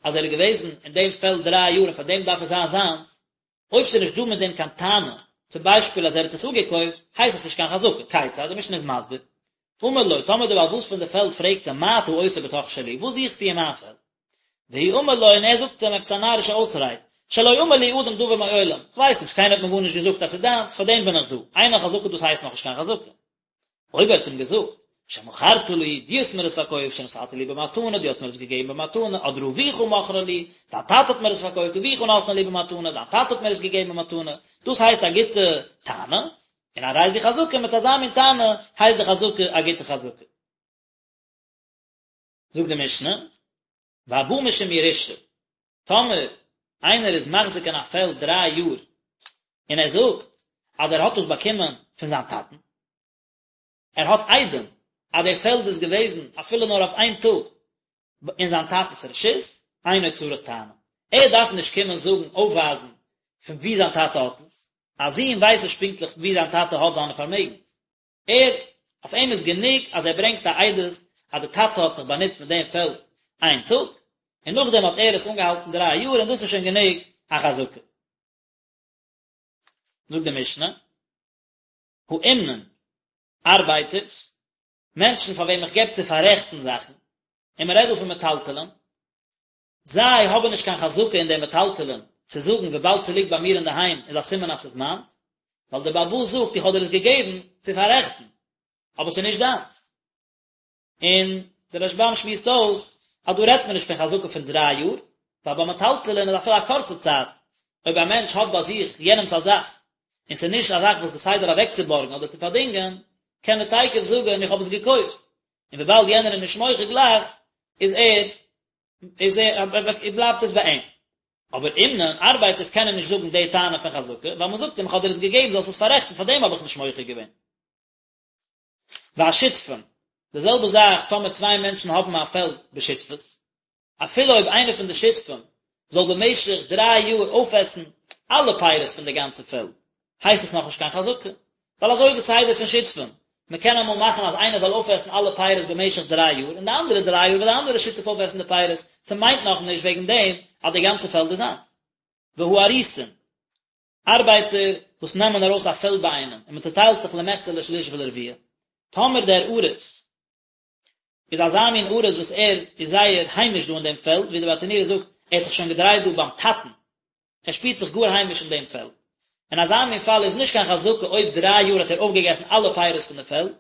אז ער איז געוועזן אין דעם פעלד דריי יאר און פאר דעם דארף עס זיין זיינס, אויב ס'איז נישט דא מיט דעם קיין טענה, צום ביישפיל אז ער האט עס אפגעקויפט, הייסט עס נישט קיין חזקה. כיצד? די משנה איז מסביר. אמר לו, טאמער דער בעל הבית פון די פעלד פרעגט אים מה אתה עושה בתוך שלי, וואס זוכסטו אין מיין פעלד? והוא אמר לו, און ער זאגט אים עפעס א נארישע אויסרייד, שלא אמר לי אדם דבר מעולם, כ'ווייס נישט, קיינער האט מיר גארנישט געזאגט אז ס'איז דיינס, פאר דעם בין איך דא, אינה חזקה דאס הייסט נאכנישט קיין חזקה. אויב ער האט אים געזאגט, שמכרת לי, דו האסט מיר עס פארקויפט, שנתת לי במתנה, דו האסט מיר עס געגעבן במתנה, אדער אביך מכרה לי, דיין טאטע האט מיר עס פארקויפט, אביך נתנה לי במתנה, דיין טאטע האט מיר עס געגעבן במתנה, דאס הייסט א גוטע טענה, און הרי זו חזקה, מיט אזא מין טענה הייסט די חזקה א גוטע חזקה. זאגט די משנה, והבא משום ירושה, טאמער איינער איז מחזיק אין א פעלד דריי יאר, און ער זאגט אז ער האט עס באקומען פון זיין טאטן, ער האט עדים אז די פעלד איז געוועזן אפילו נאר אויף איין טאג אין זיין טאטנ'ס רשות, אינו צריך טענה, ער דארף נישט קומען זאגן אויפווייזן פון וואו זיין טאטע האט עס, א זון ווייסט נישט פונקטליך וואו זיין טאטע האט זיינע פארמעגנס, ער, אויף אים איז גענוג אז ער ברענגט א עדות אז די טאטע האט זיך באנוצט מיט דעם פעלד איין טאג, און נאכדעם האט ער עס אנגעהאלטן דריי יאר און דאס איז שוין גענוג א חזקה. זאגט די משנה, האומנין. ארבייטערס, מענטשן פאר וועם איך געב צו פאררעכטן זאכן, און מען רעדט דא פון מטלטלין, זיי האבן נישט קיין חזקה אין די מטלטלין צו זאגן וויבאלד ס'ליגט ביי מיר אינדערהיים איז א סימן אז ס'איז מיינס, ווייל דער בעל הבית זאגט איך האב דיר עס געגעבן צו פאררעכטן, אבער ס'איז נישט דיינס. און דער רשב"ם שמועסט אויס אז דא רעדט מען נישט פון חזקה פון דריי יאר, ווייל ביי מטלטלין איז אפילו א קורצע צייט, אויב א מענטש האט ביי זיך יענעמס א זאך, און ס'איז נישט א זאך וואס די סדר אוועקצובארגן אדער צו פארדינגען, קען ער תיכף זאגן איך האב עס געקויפט, און וויבאלד יענער איז נישט מוחה גלייך, איז ער, איז ער, בלייבט עס ביי אים. אבער אומנין, ארבייטערס קענען נישט זאגן די טענה פון חזקה, ווייל מ'זאגט אים איך האב דיר עס געגעבן זאלסט עס פאררעכטן, פארדעם האב איך נישט מוחה געווען. והשותפין, די זעלבע זאך טאמער צוויי מענטשן האבן א פעלד בשותפות, אפילו אויב איינער פון די שותפים זאל במשך דריי יאר אויפעסן אלע פירות פון די גאנצע פעלד, הייסט עס נאכנישט קיין חזקה, ווייל אזוי איז די סדר פון שותפים, מען קען אמאל מאכן אז איינער זאל אויפעסן אלע פירות במשך דריי יאר, און די אנדערע דריי יאר וועט די אנדערע שותף אויפעסן די פירות, ס'מיינט נאכנישט וועגן דעם אז די גאנצע פעלד איז זיינס. והאריסין, ארבייטער וואס נעמען ארויס א פעלד ביי איינעם און מען צעטיילט זיך למחצה לשליש ולרביע, טאמער דער אריס איז אזא מין אריס וואס ער איז זייער היימיש דא אין דעם פעלד, ווי דער ברטנורא זאגט, ער האט זיך שוין געדרייט דא ביים טאטן, ער שפירט זיך גאר היימיש אין דעם פעלד. אין אזא מין פאל איז נישט קיין חזקה אויב דריי יאר האט ער אויפגעגעסן אלע פירות פון די פעלד,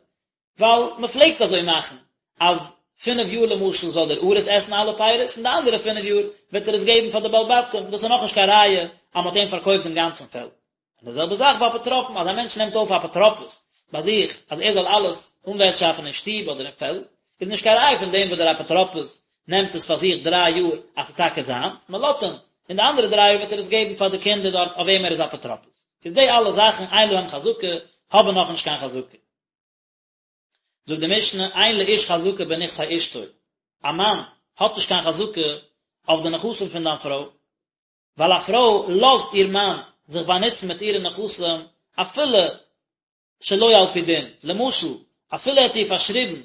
ווייל מען פלעגט אזוי מאכן אז פינף יאר למשל זאל דער אריס עסן אלע פירות און די אנדערע פינף יאר וועט ער עס געבן פאר די בעלי בתים, דאס איז נאכנישט קיין ראיה אז מען האט אים פארקויפט דעם גאנצן פעלד. און די זעלבע זאך ביי אפוטרופין, אז א מענטש נעמט אויף א אפוטרופוס ביי זיך אז ער זאל אלעס אנווערטשאפן אין שטוב אדער אין פעלד, איז נישט קיין ראיה פון דעם וואס דער אפוטרופוס נעמט עס פאר זיך דריי יאר אז ס'איז טאקע זיינס, מען לאזט אים, און די אנדערע דריי יאר וועט ער עס געבן פאר די קינדער דארט אויף וועם ער איז אפוטרופוס. איז די אלע זאכן אין להם חזקה, האבן נאכנישט קיין חזקה. זאגט די משנה, אין לאיש חזקה בנכסי אשתו, א מאן האט נישט קיין חזקה אויף די נכסים פון דיין פרוי, ווייל א פרוי לאזט איר מאן זיך באנוצן מיט אירע נכסים אפילו שלא על פי דין, למשל, אפילו ער האט איר פארשריבן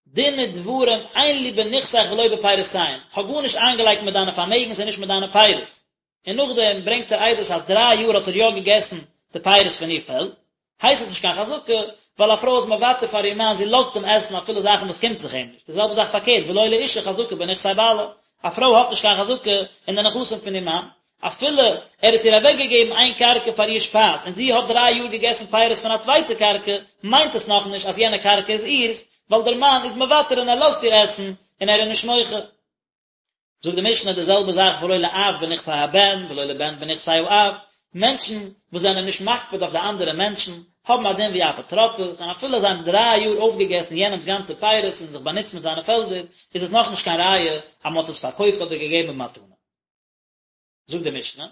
דין ודברים אין לי בנכסיך ולא בפירותיהן, כ'האב גארנישט איינגעלייגט מיט דיינע פארמעגנס און נישט מיט דיינע פירות, און נאכדעם ברענגט ער עדות אז דריי יאר האט ער יא געגעסן די פירות פון איר פעלד, הייסט עס נישט קיין חזקה, ווייל א פרוי איז מוותר פאר איר מאן, זי לאזט אים עסן אפילו זאכן וואס קומט זיך אים נישט, די זעלבע זאך פארקערט, ולא לאשה חזקה בנכסי בעלה, א פרוי האט נישט קיין חזקה אין די נכסים פון איר מאן, אפילו ער האט איר אוועקגעגעבן איין קרקע פאר איר שפייז און זי האט דריי יאר געגעסן פירות פון א צווייטע קרקע, מיינט עס נאכנישט אז יענע קרקע איז אירס, ווייל דער מאן איז מוותר און ער לאזט איר עסן און ער איז נישט מוחה. זאגט די משנה די זעלבע זאך ולא לאב בנכסי הבן ולא לבן בנכסי האב, מענטשן וואס זענען נישט מקפיד אויף די אנדערע מענטשן, האבן א דין ווי אפוטרופוס, און אפילו זיי האבן דריי יאר אויפגעגעסן יענעמ'ס גאנצע פירות און זיך באנוצט מיט זיינע פעלדער, איז עס נאכנישט קיין ראיה אז מען האט עס פארקויפט אדער געגעבן במתנה. זאגט די משנה,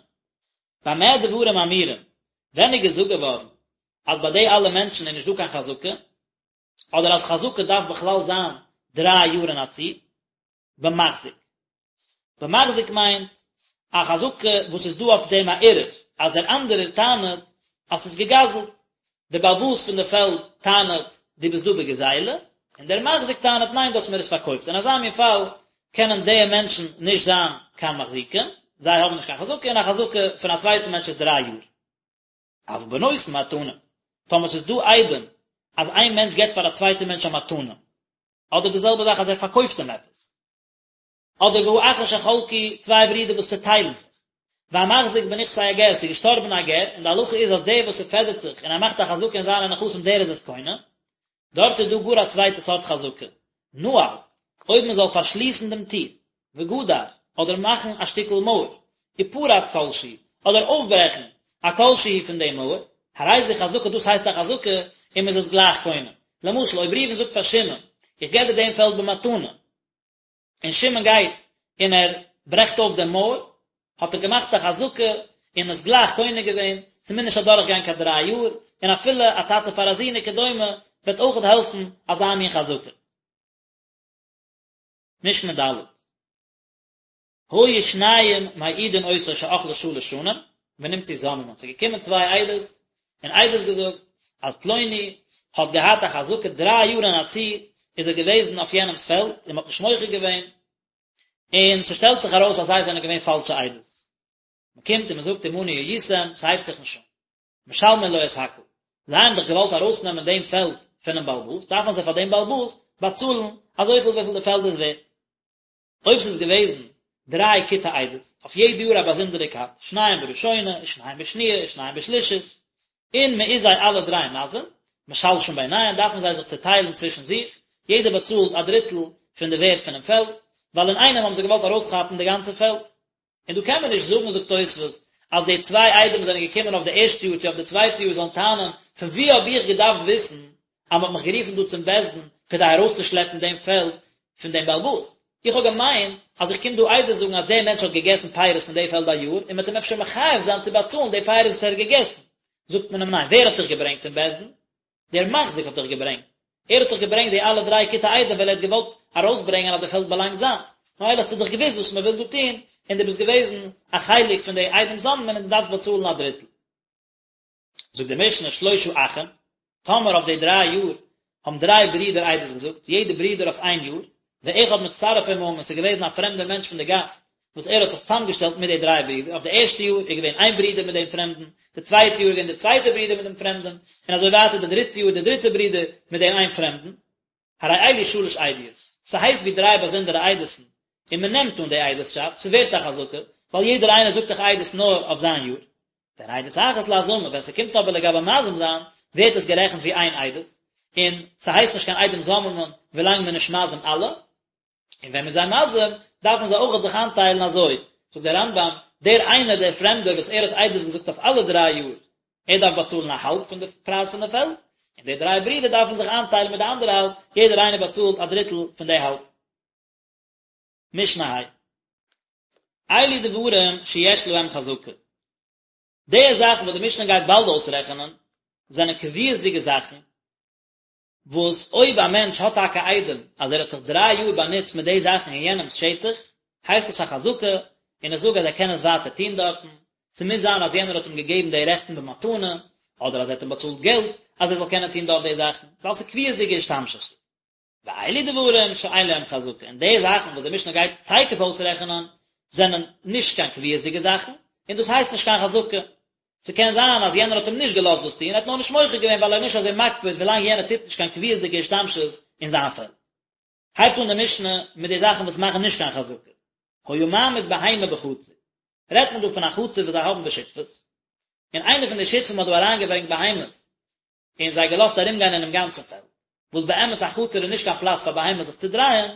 במה דברים אמורים, ווען איז געזאגט געווארן אז ביי די אלע מענטשן איז נישט דא קיין חזקה, אדער אז חזקה דארף בכלל זיין דריי יאר אין א צי, במחזיק. במחזיק מיינט א חזקה וואס איז דא אויף דעם א ערעור, אז דער אנדערער טענה'ט אז ס'איז געגזל'ט. דער בעל הבית פון די פעלד טענה'ט דו ביסט דא בגזילה, און דער מחזיק טענה'ט ניין דו האסט מיר עס פארקויפט. אין אזא מין פאל קענען די מענטשן נישט זיין קיין מחזיקים, זיי האבן נישט קיין חזקה, און א חזקה פון א צווייטן מענטש איז דריי יאר. אבל בנותן מתנה, טאמער ס'איז דא עדים אז איין מענטש געבט פאר א צווייטע מענטש א מתנה, אדער די זעלבע זאך אז ער פארקויפט אים עפעס, אדער והאחין שחלקו, צוויי ברידער וואס צעטיילן זיך, והמחזיק בנכסי הגר, ס'איז געשטארבן א גר, און די הלכה איז אז דער וואס ס'פעדערט זיך און ער מאכט א חזקה אין זיינע נכסים דער איז עס קונה, דארט איז דא גאר א צווייטע סארט חזקה, נעל, אויב מען זאל פארשליסן דעם טיר, וגדר, אדער מאכן א שטיקל מויער, ופרץ כל שהוא, אדער אויפברעכן א כל שהוא פון דעם מויער, הרי זו חזקה דאס הייסט א חזקה, און מען איז עס גלייך קונה. למשל, אויב ראובן זאגט פאר שמעון, איך געב דיר דעם פעלד במתנה, און שמעון גייט און ער ברעכט אויף דעם מויער, האט ער געמאכט א חזקה און עס גלייך קונה געווען, ס'מוז נישט אדורך גיין קיין דריי יאר, און אפילו א טאטע פאר א זון וכדומה וועט אויכעט העלפן אזא מין חזקה. משנה ד'. היו שניים מעידין אותו שאכלה שלש שנים, ונמצאו זוממין, ס'איז געקומען צוויי עדות און עדות געזאגט אז פלוני האט געהאט א חזקה דריי יאר אין א צי איז ער געוועזן אויף יענעמס פעלד און מ'האט נישט מוחה געווען, און ס'שטעלט זיך ארויס אז זיי זענען געווען פאלשע עדות. מ'קומט און מ'זאגט עמנו הייתם, ס'הייבט זיך נישט אן. משלמין לו את הכל. זיי האבן דאך געוואלט ארויסנעמען דעם פעלד פון. פונעם בעל הבית, דארפן זיי פאר דעם בעל הבית באצאלן אזויפיל וויפיל די פעלד איז ווערט. אויב ס'איז געוועזן דריי כיתי עדות, אויף יעדע יאר א באזונדערע כת, שניים בראשונה, ושניים בשניה, ושניים בשלישית, און מען איז זיי אלע דריי מזים, משלשין ביניהם, דארפן זיי זיך צעטיילן צווישן זיך, יעדער באצאלט א דריטל פון די ווערט פונעם פעלד, ווייל אינאיינעם האבן זיי געוואלט ארויסכאפן די גאנצע פעלד. און דא קען מען נישט זאגן, זאגט תוספות, אז די צוויי עדים וואס זענען געקומען אויף די ערשטע יאר צו אויף די צווייטע יאר זאלן טענה'ן, פון וואו האב איך געדארפט וויסן אז מ'האט מיך גערופן דא צום בית דין כדי ארויסצושלעפן דעם פעלד פון דעם בעל הבית? איך האב געמיינט אז איך קום דא עדות זאגן אז דער מענטש האט געגעסן פירות פון די פעלד א יאר, און מ'וועט אים אפשר מחייב זיין צו באצאלן די פירות וואס ער האט געגעסן. זאגט מען אים ניין, ווער האט דיך געברענגט צום בית דין? דער מחזיק האט דיך געברענגט, ער האט דיך געברענגט די אלע דריי כיתי עדים ווייל ער האט געוואלט ארויסברענגען אז די פעלד באלאנגט זיינס, ממילא האסטו דאך געוואוסט וואס מען וויל דא טון, און דו ביסט געוועזן א חלק פון די עדים זוממין און דו דארפסט באצאלן א דריטל. זאגט די משנה שלושה אחים, טאמער אויף די דריי יאר האבן דריי ברידער עדות געזאגט, יעדע ברודער אויף איין יאר, ואחד מצטרף עמהם און ס'איז געוועזן א פרעמדער מענטש פון די גאס וואס ער האט זיך צוזאמגעשטעלט מיט די דריי ברידער, אויף די ערשטע יאר איז געווען איין ברודער מיט דעם פרעמדן, די צווייטע יאר איז געווען די צווייטע ברודער מיט דעם פרעמדן, און אזוי ווייטער די דריטע יאר די דריטע ברודער מיט דעם איין פרעמדן. הרי אלו שלש עדיות, ס'הייסט ווי דריי באזונדערע עדות'ן, און מ'נעמט אן די עדות'שאפט, ס'ווערט א חזקה, ווייל יעדער איינער זאגט דאך עדות נאר אויף זיין יאר. והן עדות אחת להזמה, ווען ס'קומט אבער לגבי מזים זיין, ווערט עס גערעכנט ווי איין עדות, און ס'הייסט נישט קיין עדים זוממין ווילאנג מ'איז נישט מזים אלע. און ווען מ'איז זיי מזים, דארפן זיי אויכעט זיך איינטיילן אזוי, זאגט דער רמב"ם, דער איינער דער פרעמדער וואס ער האט עדות געזאגט אויף אלע דריי יאר, ער דארף באצאלן א האלב פון די פרייז פון די פעלד, און די דריי ברידער דארפן זיך איינטיילן מיט די אנדערע האלב, יעדער איינער באצאלט א דריטל פון די האלב. משנה ה'. אלו דברים שיש להם חזקה. די זאכן וואס די משנה גייט באלד אויסרעכענען, זענען קביעות'דיגע זאכן, וואס אויב א מענטש האט טאקע עדים אז ער האט זיך דריי יאר באנוצט מיט די זאכן אין יענעמ'ס שטח, הייסט עס א חזקה, און איך זאג אז ער קען עס ווייטער טון דארטן, ס'מוז זיין אז יענער האט אים געגעבן די רעכטן במתנה, אדער אז ער האט אים באצאלט געלט אז ער זאל קענען טון דארט די זאכן, ווייל ס'איז קביעות'דיגע השתמשות. ואלו דברים שאין להם חזקה, און די זאכן וואס די משנה גייט תיכף אויסרעכענען, זענען נישט קיין קביעות'דיגע זאכן, און דאס הייסט נישט קיין חזקה. ס'קען זיין אז יענער האט אים נישט געלאזט דאס טון, ער האט נאר נישט מוחה געווען ווייל ער איז נישט אזוי מקפיד ווילאנג יענער טוט נישט קיין קביעות'דיגע השתמשות אין זיין פעלד. הייבט אן די משנה מיט די זאכן וואס מאכן נישט קיין חזקה. היה מעמיד בהמה בחצר. רעדט מען דא פון א חצר וואס זיי האבן בשותפות, און איינער פון די שותפים האט דא אריינגעברענגט בהמות, און זיי געלאזט ארומגיין אינעם גאנצן פעלד, וואס באמת א חצר איז נישט קיין פלאץ פאר בהמות זיך צו דרייען,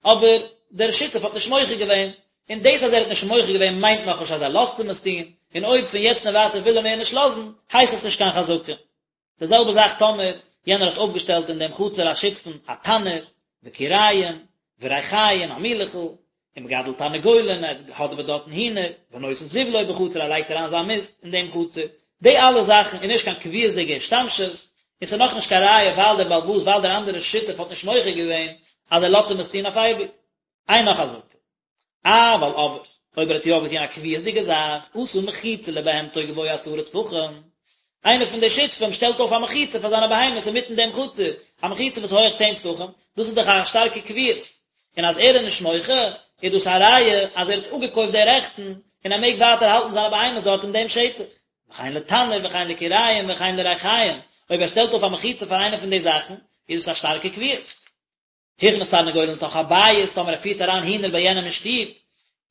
אבער דער שותף האט נישט מוחה געווען, און דאס אז ער האט נישט מוחה געווען מיינט נאכנישט אז ער לאזט אים עס טון, און אויב פון יעצט און ווייטער וויל ער מער נישט לאזן, הייסט עס נישט קיין חזקה. די זעלבע זאך טאמער יענער האט אויפגעשטעלט אין דעם חצר השותפים א תנור, וכיריים, וריחיים, א מילעכל, ומגדל תרנגולין, ער האדעוועט דארטן הינער, ונותן זבלו בחצר, ער לייגט אריין זיין מיסט אין דעם חצר, די אלע זאכן איז נישט קיין קביעות'דיגע השתמשות, און ס'איז נאכנישט קיין ראיה ווייל דער בעל הבית ווייל דער אנדערער שותף האט נישט מוחה געווען אז ער לאזט אים עס טון אויף אייביג. אינה חזקה. אבל אבער, אויב ער האט יא געטון א קביעות'דיגע זאך, עשה מחיצה לבהמתו גבוה עשרה טפחים, איינער פון די שותפים שטעלט אויף א מחיצה פאר זיינע בהמות אינמיטן דעם חצר, א מחיצה וואס איז הויעך צען טפחים, דאס איז דאך א שטארקע קביעות, און אז ער איז נישט מוחה, איז דאס א ראיה אז ער האט אפגעקויפט די רעכטן, און ער מעג ווייטער האלטן זיינע בהמות דארט אין דעם שטח. וכן לתנור וכן לכיריים וכן לריחיים, אויב ער שטעלט אויף א מחיצה פאר איינע פון די זאכן, איז דאס א שטארקע קביעות. הכניס תרנגולין לתוך הבית, טאמער ער פירט אריין הינער ביי יענעם אין שטוב,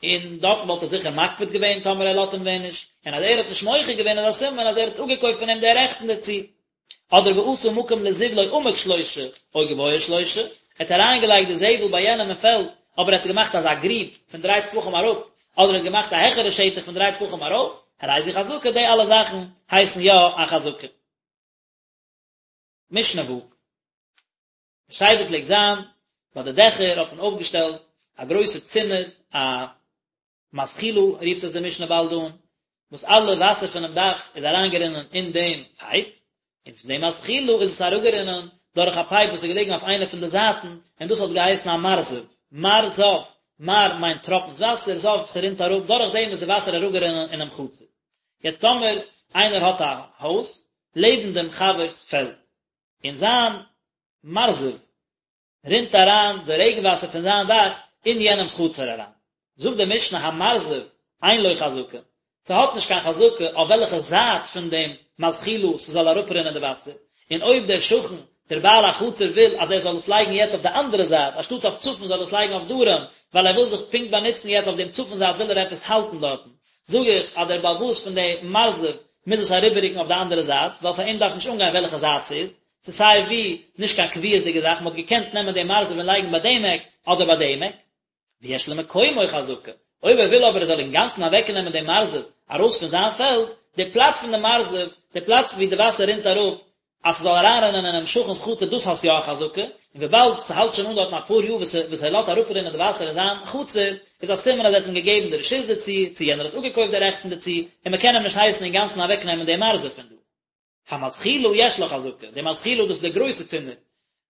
און דארטן וואלט ער זיכער מקפיד געווען טאמער ער לאזט אים ווען נישט, און אז ער האט נישט מוחה געווען איז א סימן אז ער האט אפגעקויפט פון אים די רעכטן דערצו. אדער ועשה מקום לזבלו עמוק שלושה, או גבוה שלושה, ער האט אריינגעלייגט די זבל ביי יענעם אין פעלד, אבער ער האט געמאכט אזא גריב פון דריי טפחים אראפ, אדער ער האט געמאכט א העכערע שטח פון דריי טפחים ארויף, הרי זו חזקה, די אלע זאכן הייסן יא א חזקה. משנה ו'. די סדר פלעגט זיין, ביי די דעכער האט מען אויפגעשטעלט א גרויסע צינור, א מזחילה רופט עס די משנה באלד אן, וואס אלע וואסער פונעם דאך איז אריינגערינען אין דעם פייפ, און פון דעם מזחילה איז עס אראפגערינען דורך א פייפ וואס איז געלעגן אויף איינע פון די זייטן, און דאס האט געהייסן א מרזב, מרזב, מר מיינט טראפנס וואסער, זב ס'רינט אראפ, דורך דעם איז די וואסער אראפגערינען אינעם חצר. יעצט טאמער איינער האט א הויז לעבן דעם חבר'ס פעלד, און זיין מרזב רינט אריין די רעגן וואסער פון זיין דאך אין יענעמס חצר אריין. זאגט די משנה המרזב אין לו חזקה, ס'האט נישט קיין חזקה אויף וועלכע זייט פון דעם מזחילה ס'זאל אראפרינען די וואסער, און אויב דער שכן דער בעל החצר וויל אז ער זאל עס לייגן יעצט אויף די אנדערע זייט, אנשטאטס אויף צפון זאל ער עס לייגן אויף דרום, ווייל ער וויל זיך פונקט באנוצן יעצט אויף דעם צפון זייט וויל ער עפעס האלטן דארטן, זאג איך אז דער בעל הבית פון די מרזב מוז עס אריבעררוקן אויף די אנדערע זייט, ווייל פאר אים דארף נישט אנגיין וועלכע זייט ס'איז, ס'איז סיי ווי נישט קיין קביעות'דיגע זאך, מ'האט געקענט נעמען דעם מרזב און לייגן ביי דעם עק אדער ביי דעם עק. ויש למקומו חזקה, אויב ער וויל אבער ער זאל אינגאנצן אוועקנעמען דעם מרזב ארויס פון זיין פעלד, די פלאץ פון די מרזב, די פלאץ ווי די וואסער רינט אראפ, אז ס'זאל אריינרינען אינעם שכן'ס חצר דאס האסט יא א חזקה, און וויבאלד ס'האלט שוין אן דארטן אפאר יאר וואס וואס ער לאזט אראפרינען די וואסער אין זיין חצר, איז א סימן אז ער האט אים געגעבן די רשות דערצו, צו יענער האט אפגעקויפט די רעכטן דערצו, און מ'קען אים נישט הייסן אינגאנצן אוועקנעמען דעם מרזב פון דא. המזחילה יש לה חזקה, די מזחילה דאס איז די גרויסע צינור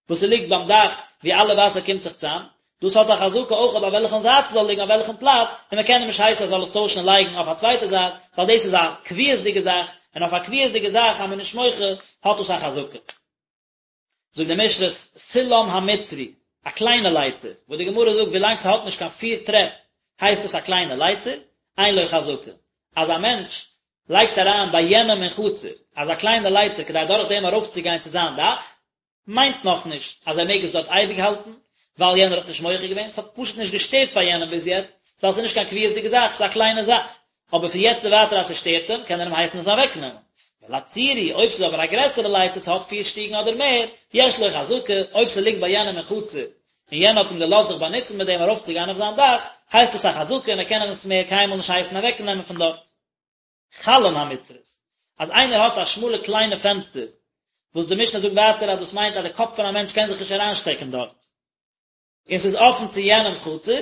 וואס ס'ליגט ביים דאך ווי אלע וואסער קומט זיך צאם, דאס האט א חזקה אויך אויף וועלכן זייט ס'זאל ליגן אויף וועלכן פלאץ, און מ'קען אים נישט הייסן ער זאל עס טוישן און לייגן אויף א צווייטע זייט, ווייל דאס איז א קביעות'דיגע זאך, און אויף א קביעות'דיגע זאך אז מ'איז נישט מוחה האט דאס א חזקה. זאגט די משנה סולם המצרי, א קליינע לייטער, וואס די גמרא זאגט ווילאנג ס'האט נישט קיין פיר טרעפ הייסט עס א קליינע לייטער, אין לו חזקה, אז א מענטש לייגט אריין ביי יענעם אין חצר אזא קליינע לייטער כדי דורך דעם ארויפצוגיין צו זיין דאך, מיינט נאכנישט אז ער מעג עס דארט אייביג האלטן, ווייל יענער האט נישט מוחה געווען, ס'האט פשוט נישט געשטערט פאר יענעם ביז יעצט, ווייל ס'איז נישט קיין קביעות'דיגע זאך, ס'איז א קליינע זאך, אבער פון יעצט און ווייטער אז ס'שטערט אים, קען ער אים הייסן עס אוועקנעמען. ולצורי, אויב ס'איז אבער א גרעסערע לייטער, ס'האט פיר שטיגן אדער מער, יש לו חזקה, אויב ס'ליגט ביי יענעם אין חצר, און יענער האט אים געלאזט זיך באנוצן מיט דעם ארויפצוגיין אויף זיין דאך, הייסט עס א חזקה און ער קען אים עס מער קיינמאל נישט הייסן אוועקנעמען פון דארט. חלון המצרית, אז איינער האט א שמאלע קליינע פענסטער, וואס די משנה זאגט ווייטער אז דאס מיינט אז די קאפ פון א מענטש קען זיך נישט אריינשטעקן דארט, און ס'איז אפן צו יענעמ'ס חצר,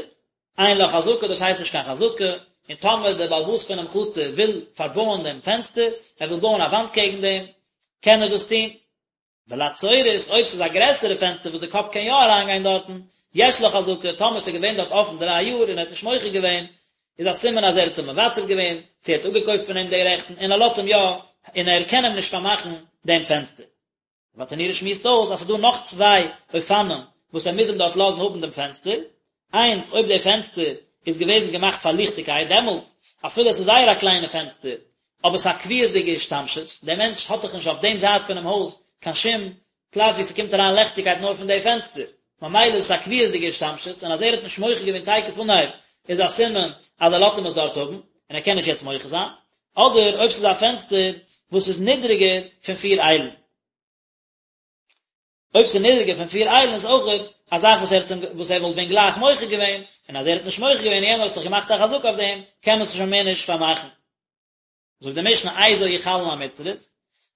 אין לה חזקה, דאס הייסט נישט קיין חזקה, און טאמער דער בעל הבית פונעם חצר וויל פארבויען דעם פענסטער, ער וויל בויען א וואנט קעגן דעם, קען ער דאס טון. ולצורית, אויב ס'איז א גרעסערע פענסטער וואס די קאפ קען יא אריינגיין דארטן, יש לה חזקה, טאמער ס'איז געווען דארט אפן דריי יאר און ער האט נישט מוחה געווען, איז א סימן אז ער האט אים מוותר געווען, צו ער האט אפגעקויפט פון אים די רעכטן, און ער לאזט אים יא, און ער קען אים נישט פארמאכן דעם פענסטער. ברטנורא שמועסט אויס אז ס'איז דא נאך צוויי אופנים וואס ער מוז אים דארט לאזן האבן דעם פענסטער, איינס, אויב דער פענסטער איז געוועזן געמאכט פאר ליכטיגקייט, דעמאלט, אפילו עס איז זייער א קליינע פענסטער, אבער ס'איז א קביעות'דיגע השתמשות, דער מענטש האט דאך נישט אויף דעם זייט פונעם הויז קיין שום פלאץ וואו ס'קומט אריין לעכטיגקייט נאר פון די פענסטער, ממילא איז עס א קביעות'דיגע השתמשות, און אז ער האט נישט מוחה געווען תיכף אנהייב איז א סימן אז ער לאזט אים עס דארט האבן, און ער קען נישט יעצט מוחה זיין, אדער אויב ס'איז א פענסטער וואס איז נידריגער פון פיר איילן. אויב ס'איז נידריגער פון פיר איילן איז אויכעט א זאך וואס ער האט אים וואס ער וואלט ווען גלייך מוחה געווען, און אז ער האט נישט מוחה געווען און יענער האט זיך געמאכט א חזקה אויף דעם, קען מען עס שוין מער נישט פארמאכן. זאגט די משנה איזו היא חלון המצרית,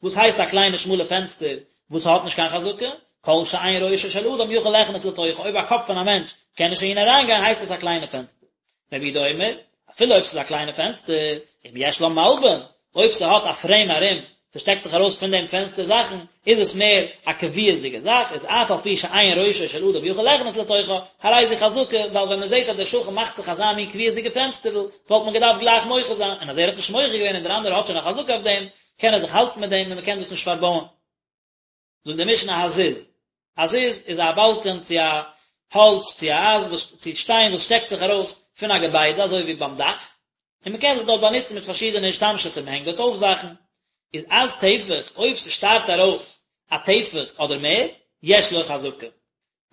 וואס הייסט א קליינע שמאלע פענסטער וואס האט נישט קיין חזקה, כל שאין ראשו של אדם יכול ליכנס לתוכה, אויב א קאפ פון א מענטש קען נישט אהין אריינגיין הייסט עס א קליינע פענסטער. רבי יהודה אומר, אפילו אויב ס'איז א קליינע פענסטער, אם יש לה מלבן, אויב ס'האט א פרעים ארום, ס'שטעקט זיך ארויס פון דעם פענסטער זאכן, איז עס מער א קביעות'דיגע זאך, איז אף על פי שאין ראשו של אדם יכול ליכנס לתוכה, הרי זו חזקה, ווייל ווען מ'זעט אז דער שכן מאכט זיך אזא מין קביעות'דיגע פענסטערל, וואלט מען געדארפט גלייך מוחה זיין, און אז ער האט נישט מוחה געווען און דער אנדערער האט שוין א חזקה אויף דעם, קען ער זיך האלטן מיט דעם און מ'קען דאס נישט פארבויען. זאגט די משנה הזיז, א זיז איז א באלקען צו א האלץ צו א אייזן וואס צו שטיין וואס שטעקט זיך ארויס פון א געביידע אזוי ווי ביים דאך, און מען קען זיך דארט באנוצן מיט פארשידענע השתמשות און מען הענגט דארט אויף זאכן, איז עז טפח אויב ס'שטארט ארויס א טפח אדער מער, יש לו חזקה.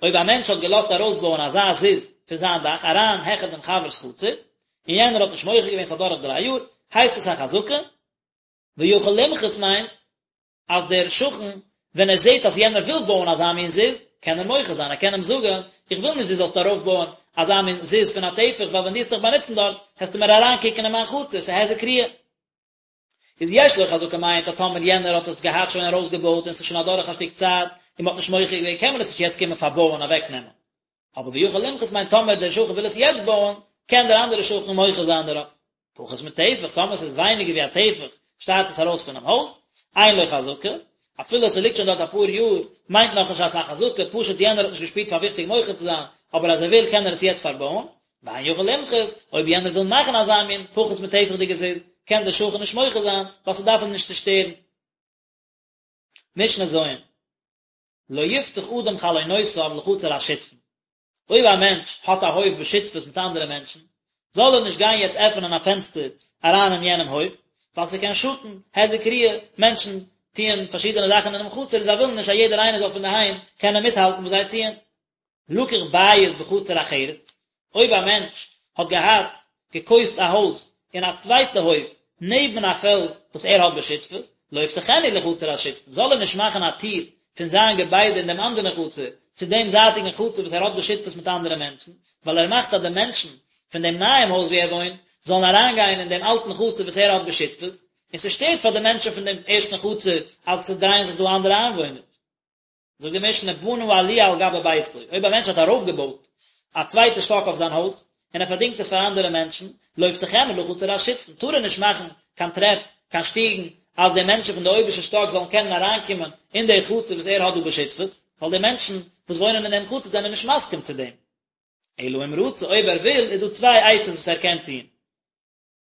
אויב א מענטש האט געלאזט ארויסבויען אזא זיז פון זיין דאך אריין העכער דעם חבר'ס חצר, און יענער האט נישט מוחה געווען ס'איז אדורך דריי יאר, הייסט עס א חזקה, ויכול למחות מיינט אז דער שכן ווען ער זעט אז יענער וויל בויען אזא מין זיז, קען ער מוחה זיין, ער קען אים זאגן, איך וויל נישט דו זאלסט ארויפבויען אזא מין זיז פון א טפח, ווייל ווען דו וועסט דיך באנוצן דארט, העסטו מיר אריינקוקן אין מיין חצר, ס'איז היזק ראיה. איז יש לו חזקה מיינט אז טאמער יענער האט עס געהאט שוין ארויסגעבויט און ס'איז שוין אדורך א שטיק צייט און מ'האט נישט מוחה געווען קען מען עס נישט יעצט קומען פארבויען אוועקנעמען. אבער ויכול למחות מיינט טאמער דער שכן וויל עס יעצט בויען, קען דער אנדערער שכן מוחה זיין דערויף. פחות מטפח, טאמער ס'איז ווייניגער ווי א טפח, שטארט עס ארויס פונעם הויז, אין לו חזקה, אפילו ס'ליגט שוין דארט אפאר יאר, מיינט נאכנישט אז ס'איז א חזקה, פשוט יענער האט נישט געשפירט פאר וויכטיג מוחה צו זיין, אבער אז ער וויל קען ער עס יעצט פארבויען, ואין יכול למחות, אויב יענער וויל מאכן אזא מין פחות מטפח'דיגע זיז, קען דער שכן נישט מוחה זיין, ווייל ס'דארף אים נישט צו שטערן. משנה ז'. לא יפתח אדם חלונותיו לחצר השותפין, אויב א מענטש האט א הויף בשותפות מיט אנדערע מענטשן, זאל ער נישט גיין יעצט עפענען א פענסטער אריין אין יענעם הויף, ווייל ס'קען שאטן, היזק ראיה, מענטשן טוען פארשידענע זאכן אינעם חצר און זיי ווילן נישט אז יעדער איינער זאל פון דערהיים קענען מיטהאלטן וואס זיי טוען. לקח בית בחצר אחרת, אויב א מענטש האט געהאט געקויפט א הויז אין א צווייטע הויף נעבן א פעלד וואס ער האט בשותפות, לא יפתחנה לחצר השותפין, זאל ער נישט מאכן א טיר פון זיין געביידע אין דעם אנדערן חצר צו דעם זייטיגן חצר וואס ער האט בשותפות מיט אנדערע מענטשן, ווייל ער מאכט אז די מענטשן פון דעם נייעם הויז וואו ער וואוינט זאלן אריינגיין אין דעם אלטן חצר וואס ער האט בשותפות, און ס'שטערט פאר די מענטשן פון דעם ערשטן חצר אז ס'דרייען זיך דא אנדערע איינוואוינער. זאגט די משנה בנה עליה על גבי ביתו, אויב א מענטש האט ארויפגעבויט א צווייטע שטאק אויף זיין הויז, און ער פארדינגט עס פאר אנדערע מענטשן, לא יפתחנה לחצר השותפין, טאר ער נישט מאכן קיין טרעפ, קיין שטיגן, אז די מענטשן פון די אויבערשטע שטאק זאלן קענען אריינקומען אין די חצר וואס ער האט דא בשותפות, ווייל די מענטשן וואס וואוינען אין דעם חצר זענען נישט מסכים צו דעם. אלא אם רצה, אויב ער וויל, איז דא צוויי עצות וואס ער קען טון.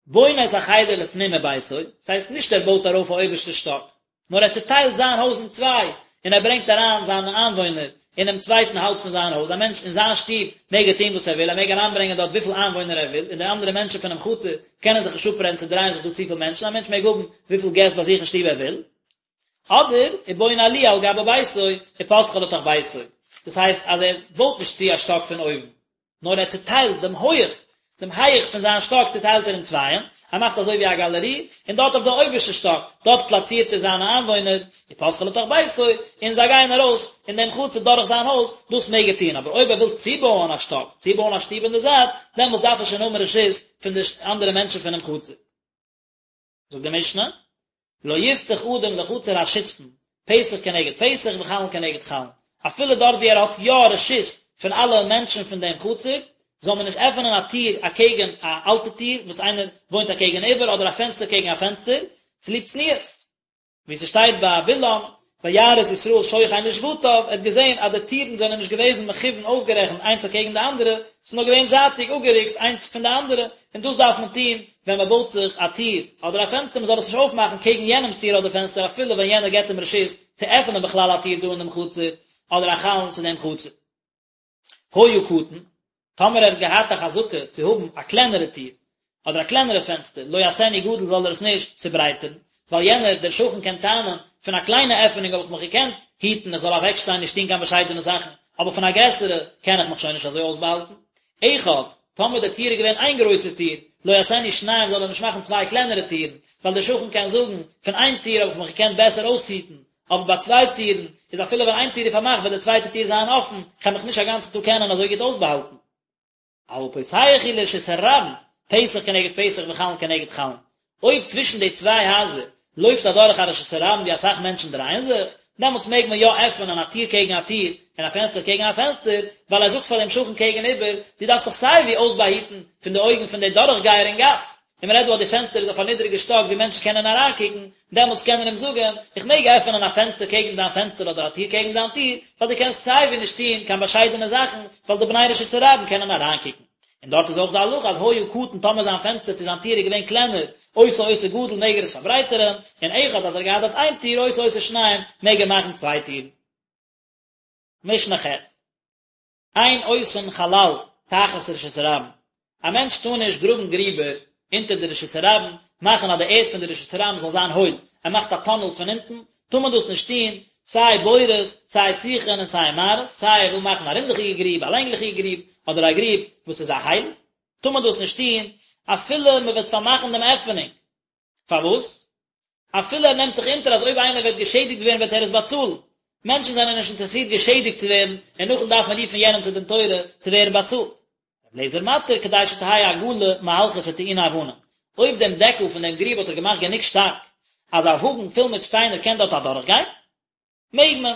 בונה את החדר לפנים מביתו, דאס הייסט נישט ער בויט ארויף א אויבערשטע שטאק, נאר ער צוטיילט זיין הויז אין צוויי, און ער ברענגט אריין זיינע איינוואוינער אינעם צווייטן האלב פון זיין הויז, א מענטש אין זיין שטוב מעג ער טון וואס ער וויל, ער מעג אריינברענגען דארט וויפיל איינוואוינער ער וויל, און די אנדערע מענטשן פונעם חצר קענען זיך נישט אפרעדן ס'דרייען זיך דא צופיל מענטשן, א מענטש מעג האבן וויפיל געסט ביי זיך אין שטוב ער וויל. אדער, ובונה עליה על גבי ביתו, ופותחה לתוך ביתו, דאס הייסט אז ער בויט נישט צו א שטאק פון אויבן, נאר ער צעטיילט דעם הויך, דעם הייך פון זיין שטאק צעטיילט ער אין צווייען, ער מאכט אזוי ווי א גאלערי, און דארט אויף די אויבערשטע שטאק, דארט פלאצירט ער זיינע איינוואוינער, ופותחה לתוך ביתו, און זיי גייען ארויס אין דעם חצר דורך זיין הויז, דאס מעג ער טון, אבער אויב ער וויל צובויען א שטאק, צובויען א שטוב אין די זייט, דעמאלטס דארף ער שוין האבן רשות פון די אנדערע מענטשן פונעם חצר. זאגט די משנה, לא יפתח אדם לחצר השותפין, פתח כנגד פתח וחלון כנגד חלון, אפילו דארט ווי ער האט יא רשות פון אלע מענטשן פון דעם חצר, זאל מען נישט עפענען א טיר אקעגן א אלטע טיר וואס איינער וואוינט אקעגן איבער אדער א פענסטער קעגן א פענסטער, צוליב צניעות. ווי ס'שטייט ביי בלעם, וירא את ישראל שוכן לשבטיו, ער האט געזען אז די טירן זענען נישט געוועזן מכוון אויסגערעכנט איינס אקעגן די אנדערע, ס'איז נאר געווען זייטיג אפגערוקט איינס פון די אנדערע, און דאס דארף מען טון ווען מען בויט זיך א טיר אדער א פענסטער, מען זאל עס נישט אויפמאכן קעגן יענעמ'ס טיר אדער פענסטער אפילו ווען יענער געבט אים רשות צו עפענען בכלל א טיר דא אין דעם חצר אדער א חלון צו דעם חצר. היה קטן, טאמער ער האט געהאט א חזקה צו האבן א קלענערע טיר, אדער א קלענערע פענסטער, לא יעשנו גדול זאל ער עס נישט צוברייטערן, ווייל יענער, דער שכן קען טענה'ן, פון א קליינע עפענונג האב איך מיך געקענט היטן איך זאל אוועקשטיין נישט טון קיין באשיידענע זאכן, אבער פון א גרעסערע קען איך מיך שוין נישט אזוי אויסבאהאלטן. אחד, טאמער די טיר איז געווען איין גרויסע טיר, לא יעשנו שניים זאל ער נישט מאכן צוויי קלענערע טירן, ווייל דער שכן קען זאגן, פון איין טיר האב איך מיך געקענט בעסער אויסהיטן, אבער ביי צוויי טירן, איז אפילו ווען איין טיר איז פארמאכט וועט די צווייטע טיר זיין אפן, כ'על מיך נישט א גאנצן טאג קענען אזוי גוט אויסבאהאלטן. אבל פותח הוא לרשות הרבים, פתח כנגד פתח וחלון כנגד חלון. אויב צווישן די צוויי הייזער לויפט אדורך א רשות הרבים ווי אסאך מענטשן דרייען זיך, דעמאלטס מעג מען יא עפענען א טיר קעגן א טיר און א פענסטער קעגן א פענסטער, ווייל ער זאגט פאר דעם שכן קעגן איבער, דו דארפסט זיך סיי ווי אויסבאהיטן פון די אויגן פון די דורכגייער אין גאס, און מען רעדט דא אז די פענסטער איז אויף א נידריגע שטאק ווי מענטשן קענען אריינקוקן, דעמאלטס קען ער אים זאגן, איך מעג עפענען א פענסטער קעגן דיין פענסטער אדער א טיר קעגן דיין טיר, ווייל דו קענסט סיי ווי נישט טון קיין באשיידענע זאכן, ווייל די בני רשות הרבים קענען אריינקוקן. און דארט איז אויך די הלכה אז היה קטן טאמער זיין פענסטער צו זיין טיר איז געווען קלענער, עושה אותו גדול מעג ער עס פארברייטערען, און אחד אז ער האט געהאט דארט איין טיר עושה אותו שניים מעג ער מאכן צוויי טירן. משנה ח'. אין עושין חלל תחת רשות הרבים, א מענטש טאר נישט גראבן גריבער אונטער די רשות הרבים, מאכן אז די ערד פון די רשות הרבים זאל זיין הויל, ער מאכט א טאנעל פון אונטן, טאר מען דאס נישט טון, סיי בורות, סיי שיחין און סיי מערות, סיי ער וויל מאכן א רינדעכיגע גריב, א לענגליכיגע גריב, אדער א גריב וואס איז א הייל, טאר מען דאס נישט טון, אפילו מען וועט פארמאכן דעם עפענונג. פארוואס? אפילו ער נעמט זיך אונטער אז אויב איינער וועט געשעדיגט ווערן וועט ער עס באצאלן. מענטשן זענען נישט אינטערעסירט געשעדיגט צו ווערן און נאכדעם דארף מען רופן יענעם צו דין תורה צו ווערן באצאלט. רבי אליעזר מתיר כדי שתהא עגלה מהלכת וטעונה אבנים. אויב דעם דעקל פון דעם גריב האט ער געמאכט גענוג שטארק אז א וואגן פול מיט שטיינער קען דארט אדורכגיין, מעג מען.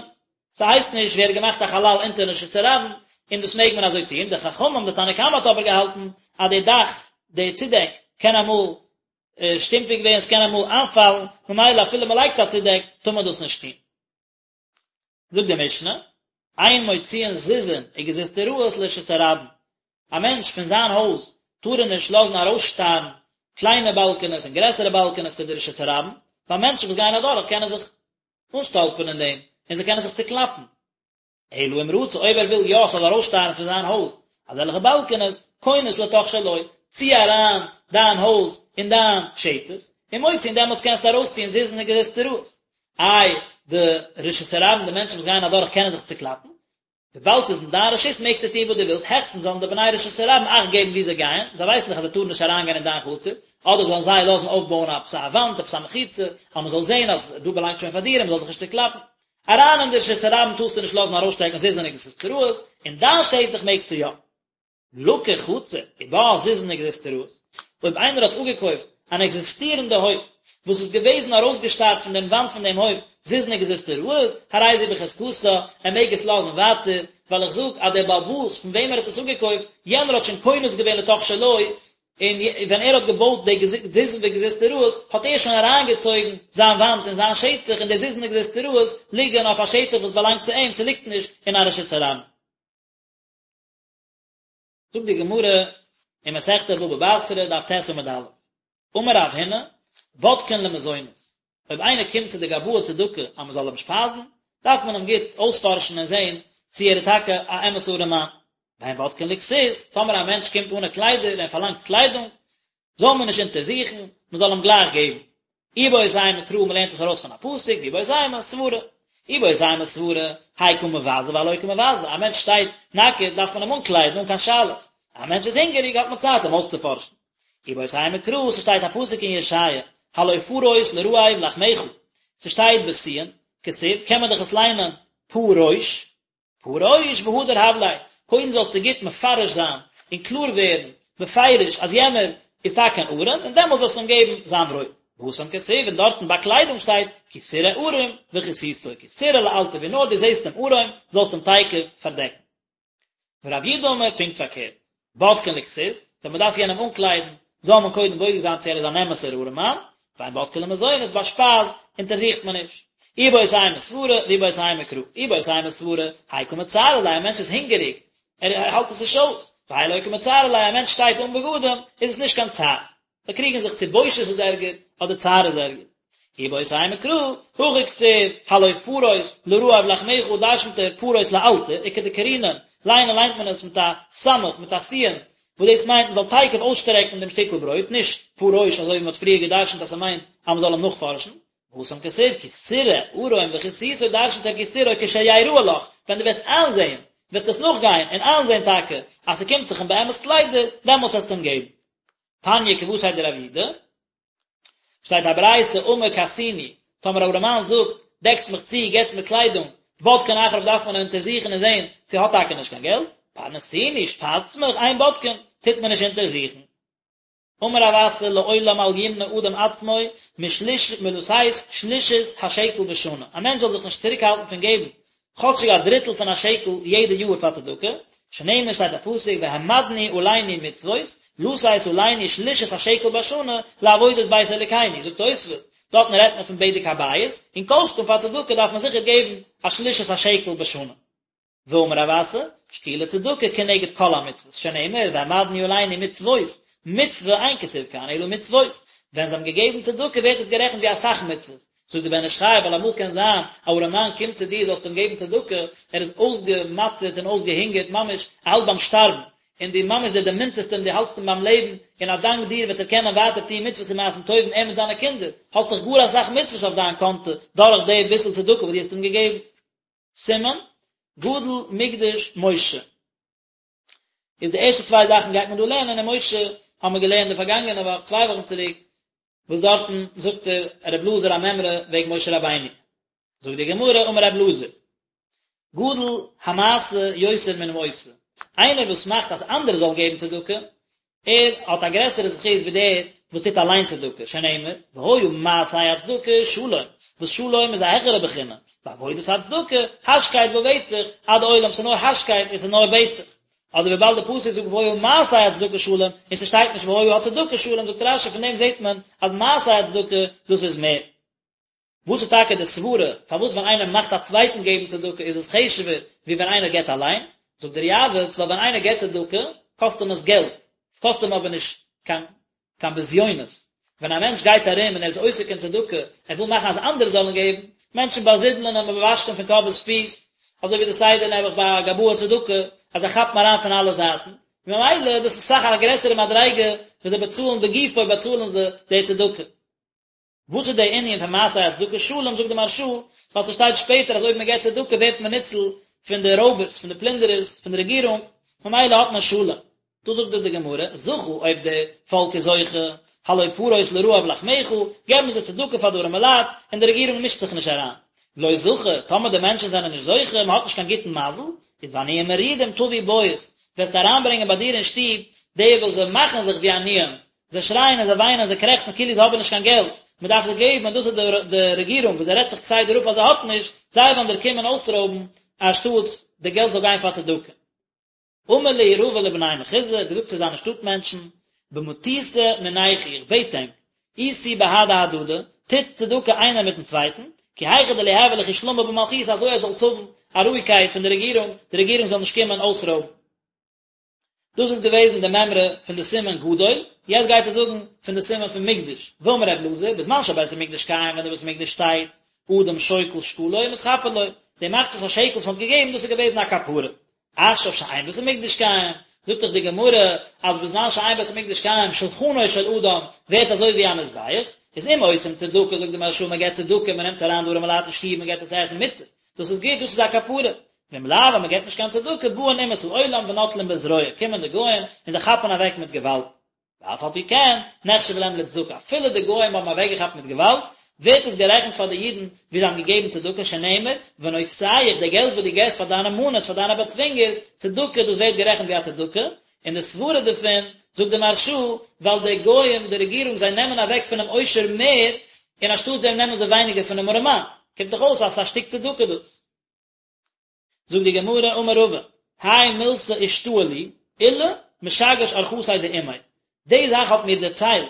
ס'הייסט נישט ווי ער האט געמאכט א חלל אונטערן רשות הרבים, און דאס מעג מען אזוי טון. די חכמים, די תנא קמא האט אבער געהאלטן אז די דאך, די צודעק, קען אמאל שטומפיג ווערן, ס'קען אמאל איינפאלן, ממילא אפילו מ'לייגט א צודעק, טאר מען דאס נישט טון. זאגט די משנה, אין מוציאין זיזין וגזוזטראות לרשות הרבים, א מענטש פון זיין הויז טאר ער נישט לאזן ארויסשטארן קליינע באלקענעס און גרעסערע באלקענעס צו די רשות הרבים, ווייל מענטשן וואס גייען אדורך קענען זיך אנשטאלפערן אין דעם, און זיי קענען זיך צוקלאפן. אלא אם רצה, אויב ער וויל יא ס'זאל ארויסשטארן פון זיין הויז אזעלכע באלקענעס, כונס לתוך שלו, צי אריין דיין הויז אין דיין שטח, ומוציא און דעמאלטס קענסטו ארויסציען זיזין און גזוזטראות. איי, די רשות הרבים, די מענטשן וואס גייען אדורך קענען זיך צוקלאפן, וויבאלד ס'איז אין דיין רשות מעגסטו טון וואס דו ווילסט, העכסטנס זאלן די בני רשות הרבים אכט געבן וואו זיי גייען, זיי ווייסן דאך אז זיי טארן נישט אריינגיין אין דיין חצר, אדער זאלן זיי לאזן אויפבויען עפעס א וואנט, עפעס א מחיצה, אז מ'זאל זען אז דא באלאנגט שוין פאר דיר און מ'זאל זיך נישט צוקלאפן. אריין אין די רשות הרבים טארסטו נישט לאזן ארויסשטעקן זיזין וגזוזטראות, אין דיין שטח מעגסטו יא. לקח חצר ובה זיזין וגזוזטראות, אויב איינער האט אפגעקויפט אן עקזיסטירענדע הויף וואס איז געוועזן ארויסגעשטארט פון דעם וואנט פון דעם הויף זיזין וגזוזטראות, הרי זו בחזקתה, ער מעג עס לאזן ווייטער, ווייל איך זאג אז דער בעל הבית פון וועם ער האט עס אפגעקויפט, יענער האט שוין כונס געווען לתוך שלו, און ווען ער האט געבויט די זיזין וגזוזטראות האט ער שוין אריינגעצויגן זיין וואנט אין זיין שטח און די זיזין וגזוזטראות ליגן אויף א שטח וואס באלאנגט צו אים, ס'ליגט נישט אין א רשות הרבים. זאגט די גמרא אין מסכת בבא בתרא דף ט עמוד א', אמר רב הונא, בודקין למזונות, אויב איינער קומט צו די גבאי צדקה אז מען זאל אים שפייזן, דארף מען אים גוט אויספארשן און זען צי ער איז טאקע א אמת'ע ארעמאן. ואין בודקין לכסות, טאמער א מענטש קומט אנע קליידער און פארלאנגט קליידונג, זאל מען נישט אונטערזוכן, מען זאל אים גלייך געבן. איבעית אימא קרא מען לערנט עס ארויס פון א פסוק, ואיבעית אימא סברא. איבעית אימא סברא, האי קא מבזה והאי לא קא מבזה, א מענטש שטייט נאקעט דארף מען אים אנקליידן אן קיין שאלות, א מענטש איז הונגעריג האט מען צייט אים אויסצופארשן. איבעית אימא קרא, ס'שטייט א פסוק אין ישעיה, הלא פרוס לרעב לחמך, ס'שטייט בשי"ן, כתיב, קען מען דאך עס ליינען פרוש, פרוש והדר הב ליה, קודם זאלסטו גוט מפרש זיין און קלאר ווערן בפירוש אז יענער איז טאקע אן ארעם, און דעמאלס זאלסטו אים געבן זיין ברויט. והתם כתיב, און דארטן ביי קליידונג שטייט כי תראה ערום וכסיתו, כי תראה לאלתר, ווי נאר דו זעסט אים ערום, זאלסטו אים תיכף פארדעקן. ורב יהודה אמר פונקט פארקערט, בודקין לכסות, ווען מען דארף יענעם אנקליידן, זאל מען קודם בודק זיין צו ער איז אן אמת'ער ארעמאן, ואין בודקין למזונות, ביי שפייז אונטערזוכט מען נישט. איבעית אימא סברא, ואיבעית אימא קרא. איבעית אימא סברא, האי קא מצערא ליה, א מענטש איז הונגעריג, ער האלט עס נישט אויס. והאי לא קא מצערא ליה, א מענטש שטייט אן בגדים, איז עס נישט קיין צער. זיי קריגן זיך צו בושת איז ערגער, אדער צער איז ערגער. איבעית אימא קרא, הכא כתיב, הלא פרוס לרעב לחמך דרשנ'ט ער פרוס לאלתר, וכדקרינן, ליינען ליינט מען עס מיט א סמך, מיט א סי"ן, וואס דאס מיינט מען זאל תיכף אויסשטרעקן דעם שטיקל ברויט, נישט פרוש אזוי ווי מען האט פריער געדרשנט אז ס'מיינט אז מען זאל אים נאכפארשן. והתם כתיב כי תראה ערום וכסיתו דרשנ'ט ער כי תראה כשיראה לך, ווען דו וועסט איינזען, וועסט עס נאכגיין און איינזען טאקע אז ס'קומט זיך אים באמת קליידער, דעמאלטס וועסטו אים געבן. תניא כוותיה דרב יהודה, שטייט א ברייתא אמר כסוני, טאמער א ארעמאן זאגט, דעקטס מיך צו, געטס מיר קליידונג, בודקין אחריו דארף מען אונטערזוכן און זען צו ער האט טאקע נישט קיין געלט, פרנסוני, שפייזטס מיך, אין בודקין, טוט מען נישט אונטערזוכן. אמר רב אסי לעולם אל ימנע אדם עצמו משליש מלתת שלישית השקל בשנה, א מענטש זאל זיך נישט צוריקהאלטן פון געבן כאטשיג א דריטל פון א שקל יעדע יאר פאר צדקה, שנאמר שטייט א פסוק והעמדנו עלינו מצוות, לתת עלינו שלישית השקל בשנה לעבודת בית אלוקינו, זאגט תוספות, דארטן רעדט מען פון בדק הבית, און כל שכן פאר צדקה דארף מען זיכער געבן א שלישית השקל בשנה. ואמר רב אסי, שקולה צדקה כנגד כל המצוות, שנאמר והעמדנו עלינו מצוות, מצוה אין כתיב כאן אלא מצוות, ווען זיי האבן געגעבן צדקה ווערט עס גערעכנט ווי אסאך מצוות, זאגט דער בן איש חי, ווייל אמאל קען זיין א ארעמאן קומט צו דיר זאלסט אים געבן צדקה, ער איז אויסגעמאטערט און אויסגעהונגערט ממש ער האלט ביים שטארבן, און דו ממש דו דערמונטערסט אים דו האלטסט אים ביים לעבן, און א דאנק דיר וועט ער קענען ווייטער טון מצוות און מעשים טובים ער מיט זיינע קינדער, האסט דאך גאר אסאך מצוות אויף דיין קאנטע דורך די ביסל צדקה וואס דו האסט אים געגעבן. סימן, גדול מקדש משה. איז די ערשטע צוויי זאכן גייט מען דא לערנען און משה האבן מיר געלערנט די פארגאנגענע וואך צוויי וואכן צוריק וואס דארטן זאגט ער רב אלעזר א מימרא וועגן משה רבינו זאגט די גמרא אמר רב אלעזר גדול המעשה יותר מן העושה איינער וואס מאכט אז אנדערע זאלן געבן צדקה ער האט א גרעסערע זכות ווי דער וואס טוט אליין צדקה, שנאמר, והיה מעשה הצדקה שלום, וואס שלום איז א העכערע בחינה, ועבודת הצדקה, השקט בבטח, עד עולם, ס'איז נאר השקט און ס'איז נאר בטח. אדער וויבאלד די פסוק זאגט והיה מעשה הצדקה שלום, און ס'שטייט נישט והיה הצדקה שלום, זאגט רש"י פון דעם זעט מען אז מעשה הצדקה דאס איז מער. וואס איז טאקע די סברה פארוואס ווען איינער מאכט א צווייטן געבן צדקה איז עס חשוב'ער ווי ווען איינער געבט אליין? זאגט דער יעבץ, ווייל ווען איינער געבט צדקה קאסט אים עס געלט, עס קאסט אים אבער נישט קיין קיין בזיונות. ווען א מענטש גייט ארום און ער איז עוסק אין צדקה, ער וויל מאכן אז אנדערע זאלן געבן, מענטשן באזידלען אים און באוואשן אים פון קאפ ביז פיס, אזוי ווי די סדר נעבעך ביי גבאי צדקה, אז זיי כאפן אריין פון אלע זייטן, ממילא דאס איז אסאך א גרעסערע מדריגה וואס זיי באצאלן בגופו באצאלן זיי די צדקה. וואס איז דער ענין פון מעשה הצדקה שלום, זאגט די מהרש"א, ווייל ס'שטייט שפעטער אז אויב מען געבט צדקה ווערט מען ניצול פון די רויבערס, פון די פלינדערערס, פון די רעגירונג, ממילא האט מען שלום. דא זאגט דיר די גמרא, זכה, אויב די פאלק איז זוכה, הלא פרוס לרעב לחמך, געבן זיי צדקה פאר די ארימע לייט, און די רעגירונג מישט זיך נישט אריין. לא זכה, טאמער די מענטשן זענען נישט זוכה, מען האט נישט קיין גוטן מזל, איז ועניים מרודים תביא בית, וועסטו אריינברענגען ביי דיר אין שטוב די וואס זיי מאכן זיך ווי עניים, זיי שרייען און זיי וויינען און זיי קרעכצן כאילו זיי האבן נישט קיין געלט, מען דארף זיי געבן און דאס איז די רעגירונג וואס זי רעדט זיך כסדר אפ אז זי האט נישט, זיי וועלן דיר קומען אויסרויבן אנשטאטס די געלט זאל גיין פאר צדקה. אמר להו רבא לבני מחוזא, האט געזאגט צו זיינע שטאט מענטשן, במטותא מינייכו, איך בעט ענק, עישו בהדי הדדי, טוטס צדקה איינער מיטן צווייטן, כי היכי דליהוי לכו שלמא במלכותא אזוי אז זאלטס האבן א רואיגקייט פון די רעגירונג, די רעגירונג זאל נישט קומען אויסרויבן. דאס איז געוועזן די מימרא פון די סימן גדול, יעצט גייט ער זאגן פון די סימן פון מקדש, ואמר ר' אלעזר, בזמן שבית המקדש קיים ווען די בית המקדש שטייט, אדם שוקל שקלו ומתכפר לו, די מחצית השקל וואס מען האט געגעבן דאס איז געוועזן א כפרה, עכשיו שאין בית המקדש קיים, זאגט דאך די גמרא אז בזמן שאין בית המקדש קיים שלחנו של אדם ווערט אזוי ווי א מזבח, איז אם עושים צדקה זאגט די מהרש"א מען געבט צדקה מען נעמט אריין די ארימע לייט אין שטוב מען געבט זיי צו עסן מוטב, דאס איז גוט דאס איז א כפרה, ואם לאו אז מען געבט נישט קיין צדקה באין אומות העולם ונוטלין בזרוע קומען די גוים און זיי כאפן אוועק מיט געוואלד. ואף על פי כן, נחשב להם לצדקה, אפילו די גוים האבן אוועקגעכאפט מיט געוואלד, ווערט עס גערעכנט פאר די אידן ווי זיי האבן געגעבן צדקה, שנאמר, ונוגשיך, די געלט וואס דו געבסט פאר דיינע מאנערס, פאר דיינע באצווינגערס, צדקה, דאס ווערט גערעכנט ווי א צדקה, און די סברה דערפון, זאגט די מהרש"א, ווייל די גוים, די רעגירונג, זיי נעמען אוועק פונעם עושר מער, און אנשטאט דעם נעמען זיי ווייניגער פונעם ארעמאן, קומט דאך אויס אז ס'איז א שטיק צדקה דאס. זאגט די גמרא אמר רבא, האי מילתא אישתעי לי, עולא משגש ארחתיה דאימיה, די זאך האט מיר דערציילט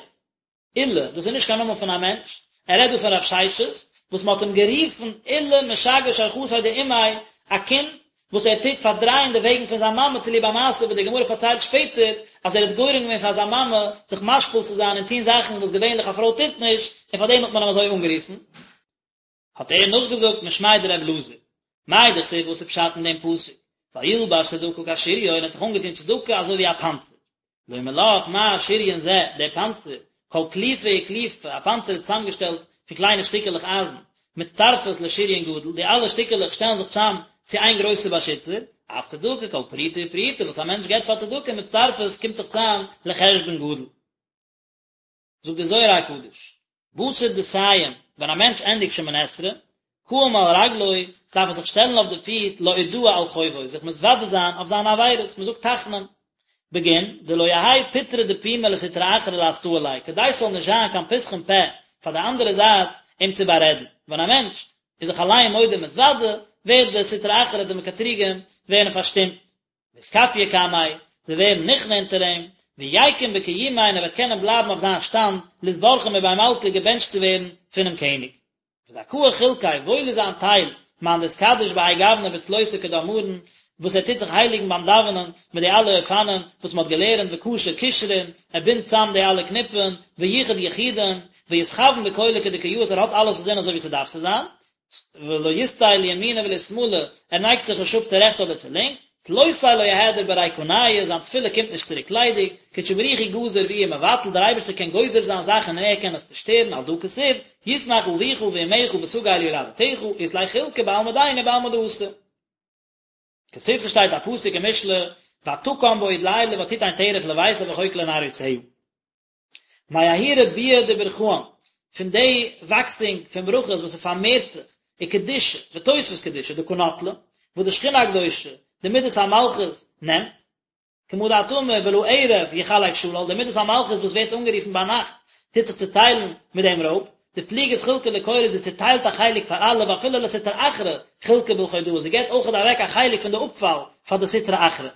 עולא, דאס איז נישט קיין נאמען פון א מענטש, ער רעדט דא פון רב ששת, וואס מען האט אים גערופן עולא משגש ארחתיה דאימיה, א קינד וואס ער טוט פארדרייען די וועגן פון זיין מאמע צוליב א מעשה וואס די גמרא פארציילט שפעטער, אז ער האט גורם געווען פאר זיין מאמע זיך משפיל צו זיין און טון זאכן וואס געווענליך א פרוי טוט נישט, און פאר דעם האט מען אים אזוי אנגערופן. האט ער נאכגעזאגט משמיה דר' אלעזר, מאי דכתיב וואס איז פשט אין דעם פסוק, וילבש צדקה כשריון, ער האט זיך אנגעטון צדקה אזוי ווי א פאנצער, לומר לך מה שריון זה, דער פאנצער, כל קליפה וקליפה, א פאנצער איז צוזאמגעשטעלט פון קליינע שטיקעלעך אייזן, מצטרפות לשריון גדול, די אלע שטיקעלעך שטעלן זיך צוזאם צו איין גרויסע באשיצער, אף צדקה כל פרוטה ופרוטה וואס א מענטש געבט פאר צדקה מצטרפות קומט זיך צוזאם לחשבון גדול. זאגט דער זוהר הקדוש, בתר דסיים, ווען א מענטש ענדיגט שמונה עשרה, קאים על רגלוי, דארף ער זיך שטעלן אויף די פיס לאודאה על חובוי, זיך מתוודה זיין אויף זיינע עבירות, מען זאגט תחנון, בגין דלא יהא פטרא דפומא לסטרא אחרא לאסטאה ליה, כדי ס'זאל נישט זיין קיין פתחון פה פאר די אנדערע זייט אים צו בארעדן, ווען א מענטש איז זיך אליין מודה ומתוודה, ווערט די סטרא אחרא די מקטריגים ווערן פארשטומט. ואתכפיא קמיה, זיי ווערן נכנע אונטער אים, ויקום בקיומיה און ער וועט קענען בלייבן אויף זיין שטאנד, לאתברכא מבי מלכא געבענטשט צו ווערן פונעם קעניג. וזכאה חולקיה, וואויל איז זיין טייל, מאן דאתקדיש בהאי גוונא בצלותא כדאמרן, וואס ער טוט זיך הייליגן ביים דאווענען מיט די אלע אופנים וואס מען האט געלערנט וקשר קשרין, ער בינדט צאם די אלע קניפן, וייחד יחודין, ואתכוין בכולא כדקא יאות ער האט אלעס אינזין אזוי ווי ס'דארף צו זיין, ולא יסטי לימינא ולא לשמאלא, ער נייגט זיך נישט אפ צו רעכטס אדער צו לינקס, צלותיה לא אהדר בריקניא, זיין תפילה קומט נישט צוריק ליידיג, קודשא בריך הוא גזיר ואיהו מבטל, דער אייבערשטער קען גוזר זיין זאכן און ער קען עס צושטערן, על דא כתיב, ישמח אביך ואמך ותגל יולדתך, אית ליה חולקא בעלמא דין ובעלמא דאתי. כתיב ס'שטייט א פסוק אין משלי, ותקם בעוד לילה ותתן טרף לביתה וחוק לנערותיה. מההוא רבויא דברכאן, פון די וואקסינג פון ברכות וואס ס'פארמערט זיך, וקדושה, ותוספות קדושה, דקא נטלא, וואס די שכינה הקדושה, די מידת המלכות, נעמט, כמה דאת אמר ולערב יחלק שלל, די מידת המלכות וואס ווערט אנגערופן ביינאכט, טוט זיך צוטיילן מיט דעם רויב, דפליגת חולקא לכולא זי צוטיילט א חלק פאר אלע ואפילו לסטרא אחרא חולקא בלחודהא, זי געבט אויכעט אוועק א חלק פון די אפפאל פאר די סטרא אחרא.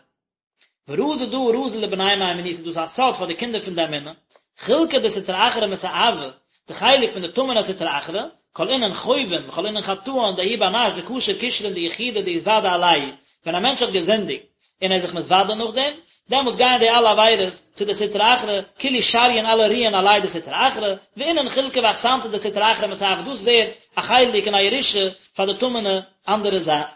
ורזא דא רזא לבני מהימנותא דאס איז א סוד פאר די קינדער פון די אמונה, חולקא דסטרא אחרא מסאבא, די חלק פון די טמא'נע סטרא אחרא, כל אינון חובין וכל אינון חטאן דההוא בר נש דקשר קשרין דיחודא דאתודי עלייהו, ווען א מענטש האט געזינדיגט און ער איז זיך מתוודה נאכדעם, דעמאלטס גייען די אלע עבירות צו די סטרא אחרא, כולהו שריין אלע רוען עליה דסטרא אחרא, ואינון חולקא ואחסנתא דסטרא אחרא מסאבא דאס ווערט א חלק און א ירושה פאר די טמא'נע אנדערע זייט.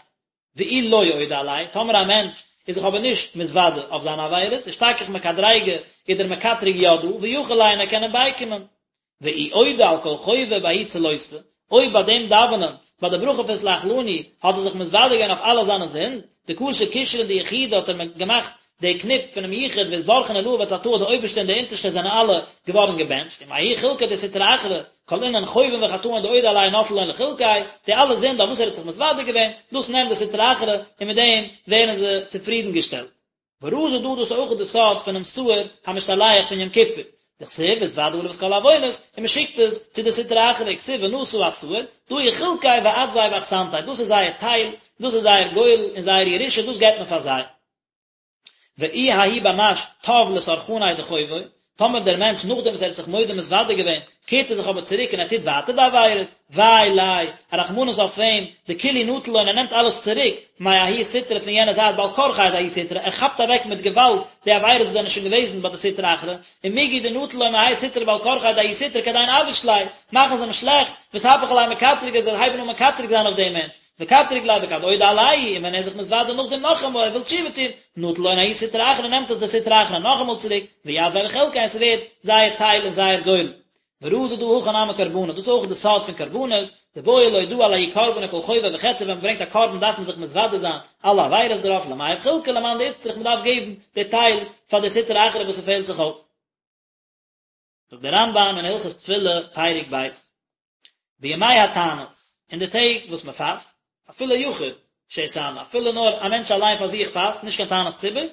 ואי לא אודי עלייהו, טאמער א מענטש איז זיך אבער נישט מתוודה אויף זיינע עבירות, אשתכח מקטריגא איז דער מקטרג יא דא, ויכיל ליה און ער קען אים בייקומען. ואי אודי על כל חובוי בההוא צלותא, אויב ביי דעם דאווענען, ביי די ברכה פון סלח לנו, האט ער זיך מתוודה געווען אויף אלע זיינע זינד, דקשר קשרין דיחודא האט ער געמאכט די קניפ פונעם יחוד ואתברכון עלאה ותתאה די אויבערשטע און די אונטערשטע זענען אלע געווארן געבענטשט, ומההוא חולקא דסטרא אחרא, כל אינון חובין וחטאין דאודי עלייהו נטל לון לחולקיה, די אלע זינד אויף וואס ער האט זיך מתוודה געווען, דאס נעמט די סטרא אחרא און מיט דעם ווערן זיי צופרידן געשטעלט. ורזא דא דאס איז אויך די סוד פונעם שעיר המשתלח פון יום כיפור, דכתיב והתודה עליו את כל העוונות, און מען שיקט עס צו די סטרא אחרא וכתיב ונשא השעיר, דא הוא חולקיה ואדויה ואחסנתיה, דאס איז זייער טייל, דאס איז זייער גורל און זייער ירושה, דאס געבט מען פאר זיי. ואי ההוא בר נש תב לסרחניה דחובוי, טאמער דער מענטש נאכדעם וואס ער האט זיך מודה מתוודה געווען, קערט ער זיך אבער צוריק און ער טוט ווייטער די עבירות, וויי ליה, א רחמנות אויף אים, דכולהו נטיל לון ער נעמט אלעס צוריק, מההוא סטרא פון יענע זייט בעל כרחיה דההוא סטרא, ער כאפט אוועק מיט געוואלד די עבירות וואס זענען שוין געוועזן ביי די סטרא אחרא, ומגו דנטיל לון מהאי סטרא בעל כרחיה דההוא סטרא כדין אבאיש ליה, מאכן זיי אים שלעכט, ואתהפך עליה מקטרגא זיי הייבן אן מקטרג זיין אויף דעם מענטש, וקטרג ליה וכד אודי עלייהו, און ווען ער איז זיך מתוודה נאכדעם נאכאמאל ער וויל תשובה טון, נטיל לון ההוא סטרא אחרא נעמט עס דער סטרא אחרא נאכאמאל צוריק, ויתביה לחולקיה און ס'ווערט זייער טייל און זייער גורל. ורזא דא הכי נמי קרבנא, דאס איז אויך די סוד פון קרבנות, דבעי לאודאה על ההוא קרבנא כל חובוי וחטאוי ווען מ'ברענגט א קרבן דארף מען זיך מתוודה זיין אלע עבירות דערויף למיהב חולקא למאן דאיצטריך מ'דארף געבן די טייל פאר די סטרא אחרא וואס ס'פעלט זיך אויס. זאגט דער רמב"ם אין הלכות תפילה פרק ב', בימי התענית, אין די טעג וואס מען פאסט, אפילו יחיד שהתענה, אפילו נאר א מענטש אליין פאר זיך פאסט, נישט קיין תענית ציבור,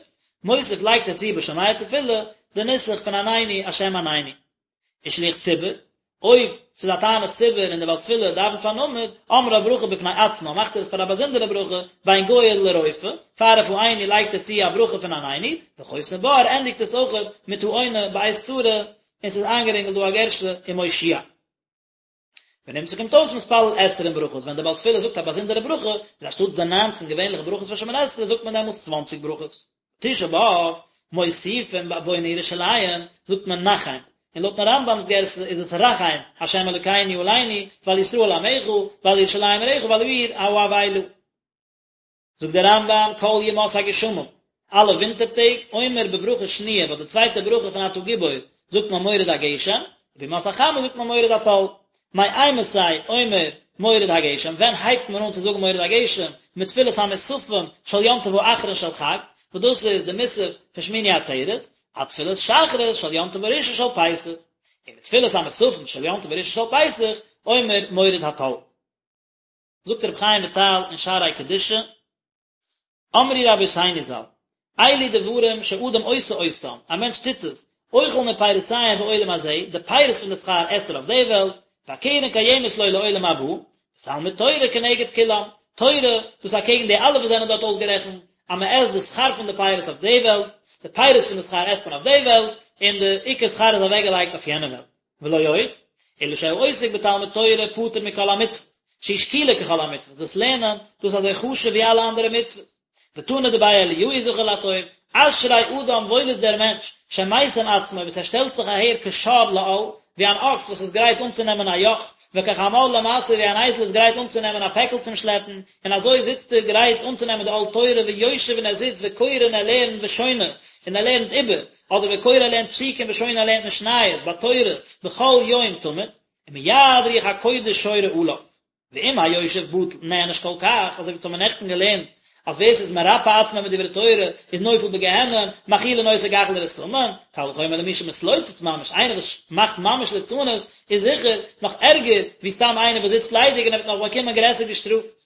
מוסיף לייגט ער צו בשומע תפילה די נוסח פון עננו השם עננו. ושליח ציבור, אויב ס'איז א תענית ציבור און דער בעל תפילה דאווענט פארן עמוד, אומרה ברכה בפני עצמה, מאכט ער עס פאר א באזונדערע ברכה, בין גואל לרופא, פאר רפאנו לייגט ער צו א ברכה פון עננו, וחותם בה ער ענדיגט עס אויכעט מיט העונה בעת צרה, און ס'איז איינגערינגלט דא א גירסא ומושיע. ונמצא קומט אויס מתפלל עשרים ברכות, ווען דער בעל תפילה זאגט א באזונדערע ברכה, איז אנשטאטס די ניינצן געווענליכע ברכות פון שמונה עשרה זאגט מען דעמאלטס צוואנציג ברכות. תשעה באב, מוסיפין בבונה ירושלים, זאגט מען נחם, און לויטן רמב"ם'ס גירסא איז עס רחם, ה' אלוקינו עלינו, ועל ישראל עמך, ועל ירושלים עירך ועל העיר האבלה. זאגט דער רמב"ם כל ימות הגשמים, אלע ווינטער טעג, אומר בברכה שניה, ביי די צווייטע ברכה פון אתה גיבור זאגט מען מוריד הגשם, ובימות החמה זאגט מען מוריד הטל. מאימתי אומר מוריד הגשם, ווען הייבט מען אן צו זאגן מוריד הגשם, מתפילת המוספים של יום טוב האחרון של חג, וואס דאס איז די מוסף פון שמיני עצרת, עד תפילת שחרית של יום טוב הראשון של פסח, ומתפילת המוספים של יום טוב הראשון של פסח, אומר מוריד הטל. זאגט רבי חיים וויטאל אין שערי קדושה, אמרו רבותינו ז"ל, אלו דברים שאדם עושה אותם, א מענטש טוט עס, אוכל מפירותיהם בעולם הזה, די פירות פון די שכר עסט ער אויף די וועלט, והקרן קיימת לו לעולם הבא, ותלמוד תורה כנגד כולם, תורה, דאס איז אקעגן די אלע וואס זענען דארט אויסגערעכנט, אז מען עסט די שכר פון די פירות אויף די וועלט, די פירות פון די שכר עסט מען אויף די וועלט, און די עיקר שכר איז אוועקגעלייגט אויף יענע וועלט. ולא עוד, אלא שהעוסק בתלמוד תורה פטור מכל המצוות, שהיא שקולה ככל המצוות, דאס לערנען, דאס איז אזוי חשוב ווי אלע אנדערע מצוות. ותנא דבי אליהו זכור לטוב, אשרי אדם וואויל איז דער מענטש, שמשים עצמו וואס ער שטעלט זיך אהער כשור לעול, ווי אן אקס וואס איז גרייט אנצונעמען א יאך, וכחמור למשא ווי אן אייזל איז גרייט אנצונעמען א פעקל צום שלעפן, און אזוי זיצט ער גרייט אנצונעמען די עול תורה ויושב און ער זיצט וקורא און ער לערנט ושונה און ער לערנט איבער, אדער וקורא ער לערנט פסוקים ושונה ער לערנט משניות בתורה בכל יום תמיד, ומיד רוח הקודש שורה עליו. ואם היושב בטל נענש כל כך, אזוי ווי אונז האבן נעכטן געלערנט אז ווער ס'איז מרפה עצמו מדברי תורה איז נופל בגיהנום, מאכילין אותו גחלי רתמים, קל וחומר למי שמתלוצץ ממש, איינער וואס מאכט ממש ליצנות איז זיכער נאך ערגער ווי סתם איינער וואס זיצט ליידיג און ער וועט נאך באקומען גרעסער געשטראפט.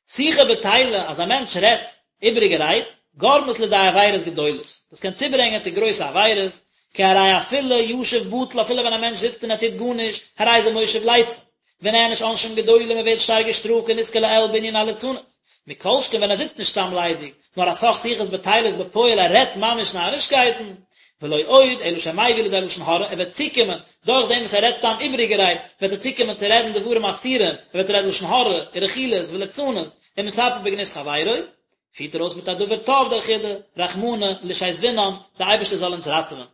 שיחה בטילה, אז א מענטש רעדט איבעריגע רייד, גורמת לידי עבירות גדולות, דאס קען צוברענגען צו גרויסע עבירות, כי הרי אפילו ישב בטל, אפילו ווען א מענטש זיצט און ער טוט גארנישט, הרי זה מושב לצים, ונענש עונשים גדולים מען ווערט שטארק געשטראפט כנזכר לעיל בענין הליצנות, מכל שכן ווען ער זיצט נישט סתם ליידיג, נאר א סך שיחות בטילות בפועל ער רעדט ממש נארישקייטן, ולא עוד אלא שמביא לידי לשון הרע, ער וועט צוקומען, דורך דעם וואס ער רעדט סתם איבעריגע רייד, וועט ער צוקומען צו רעדן דברים אסורים, ער וועט רעדן לשון הרע, ורכילות, וליצנות, ומספר בגנות חברו, פירט ער אויס מיט א דבר טוב דער חידא, רחמנא לישזבינן, דער אייבערשטער זאל אונז ראטעווען.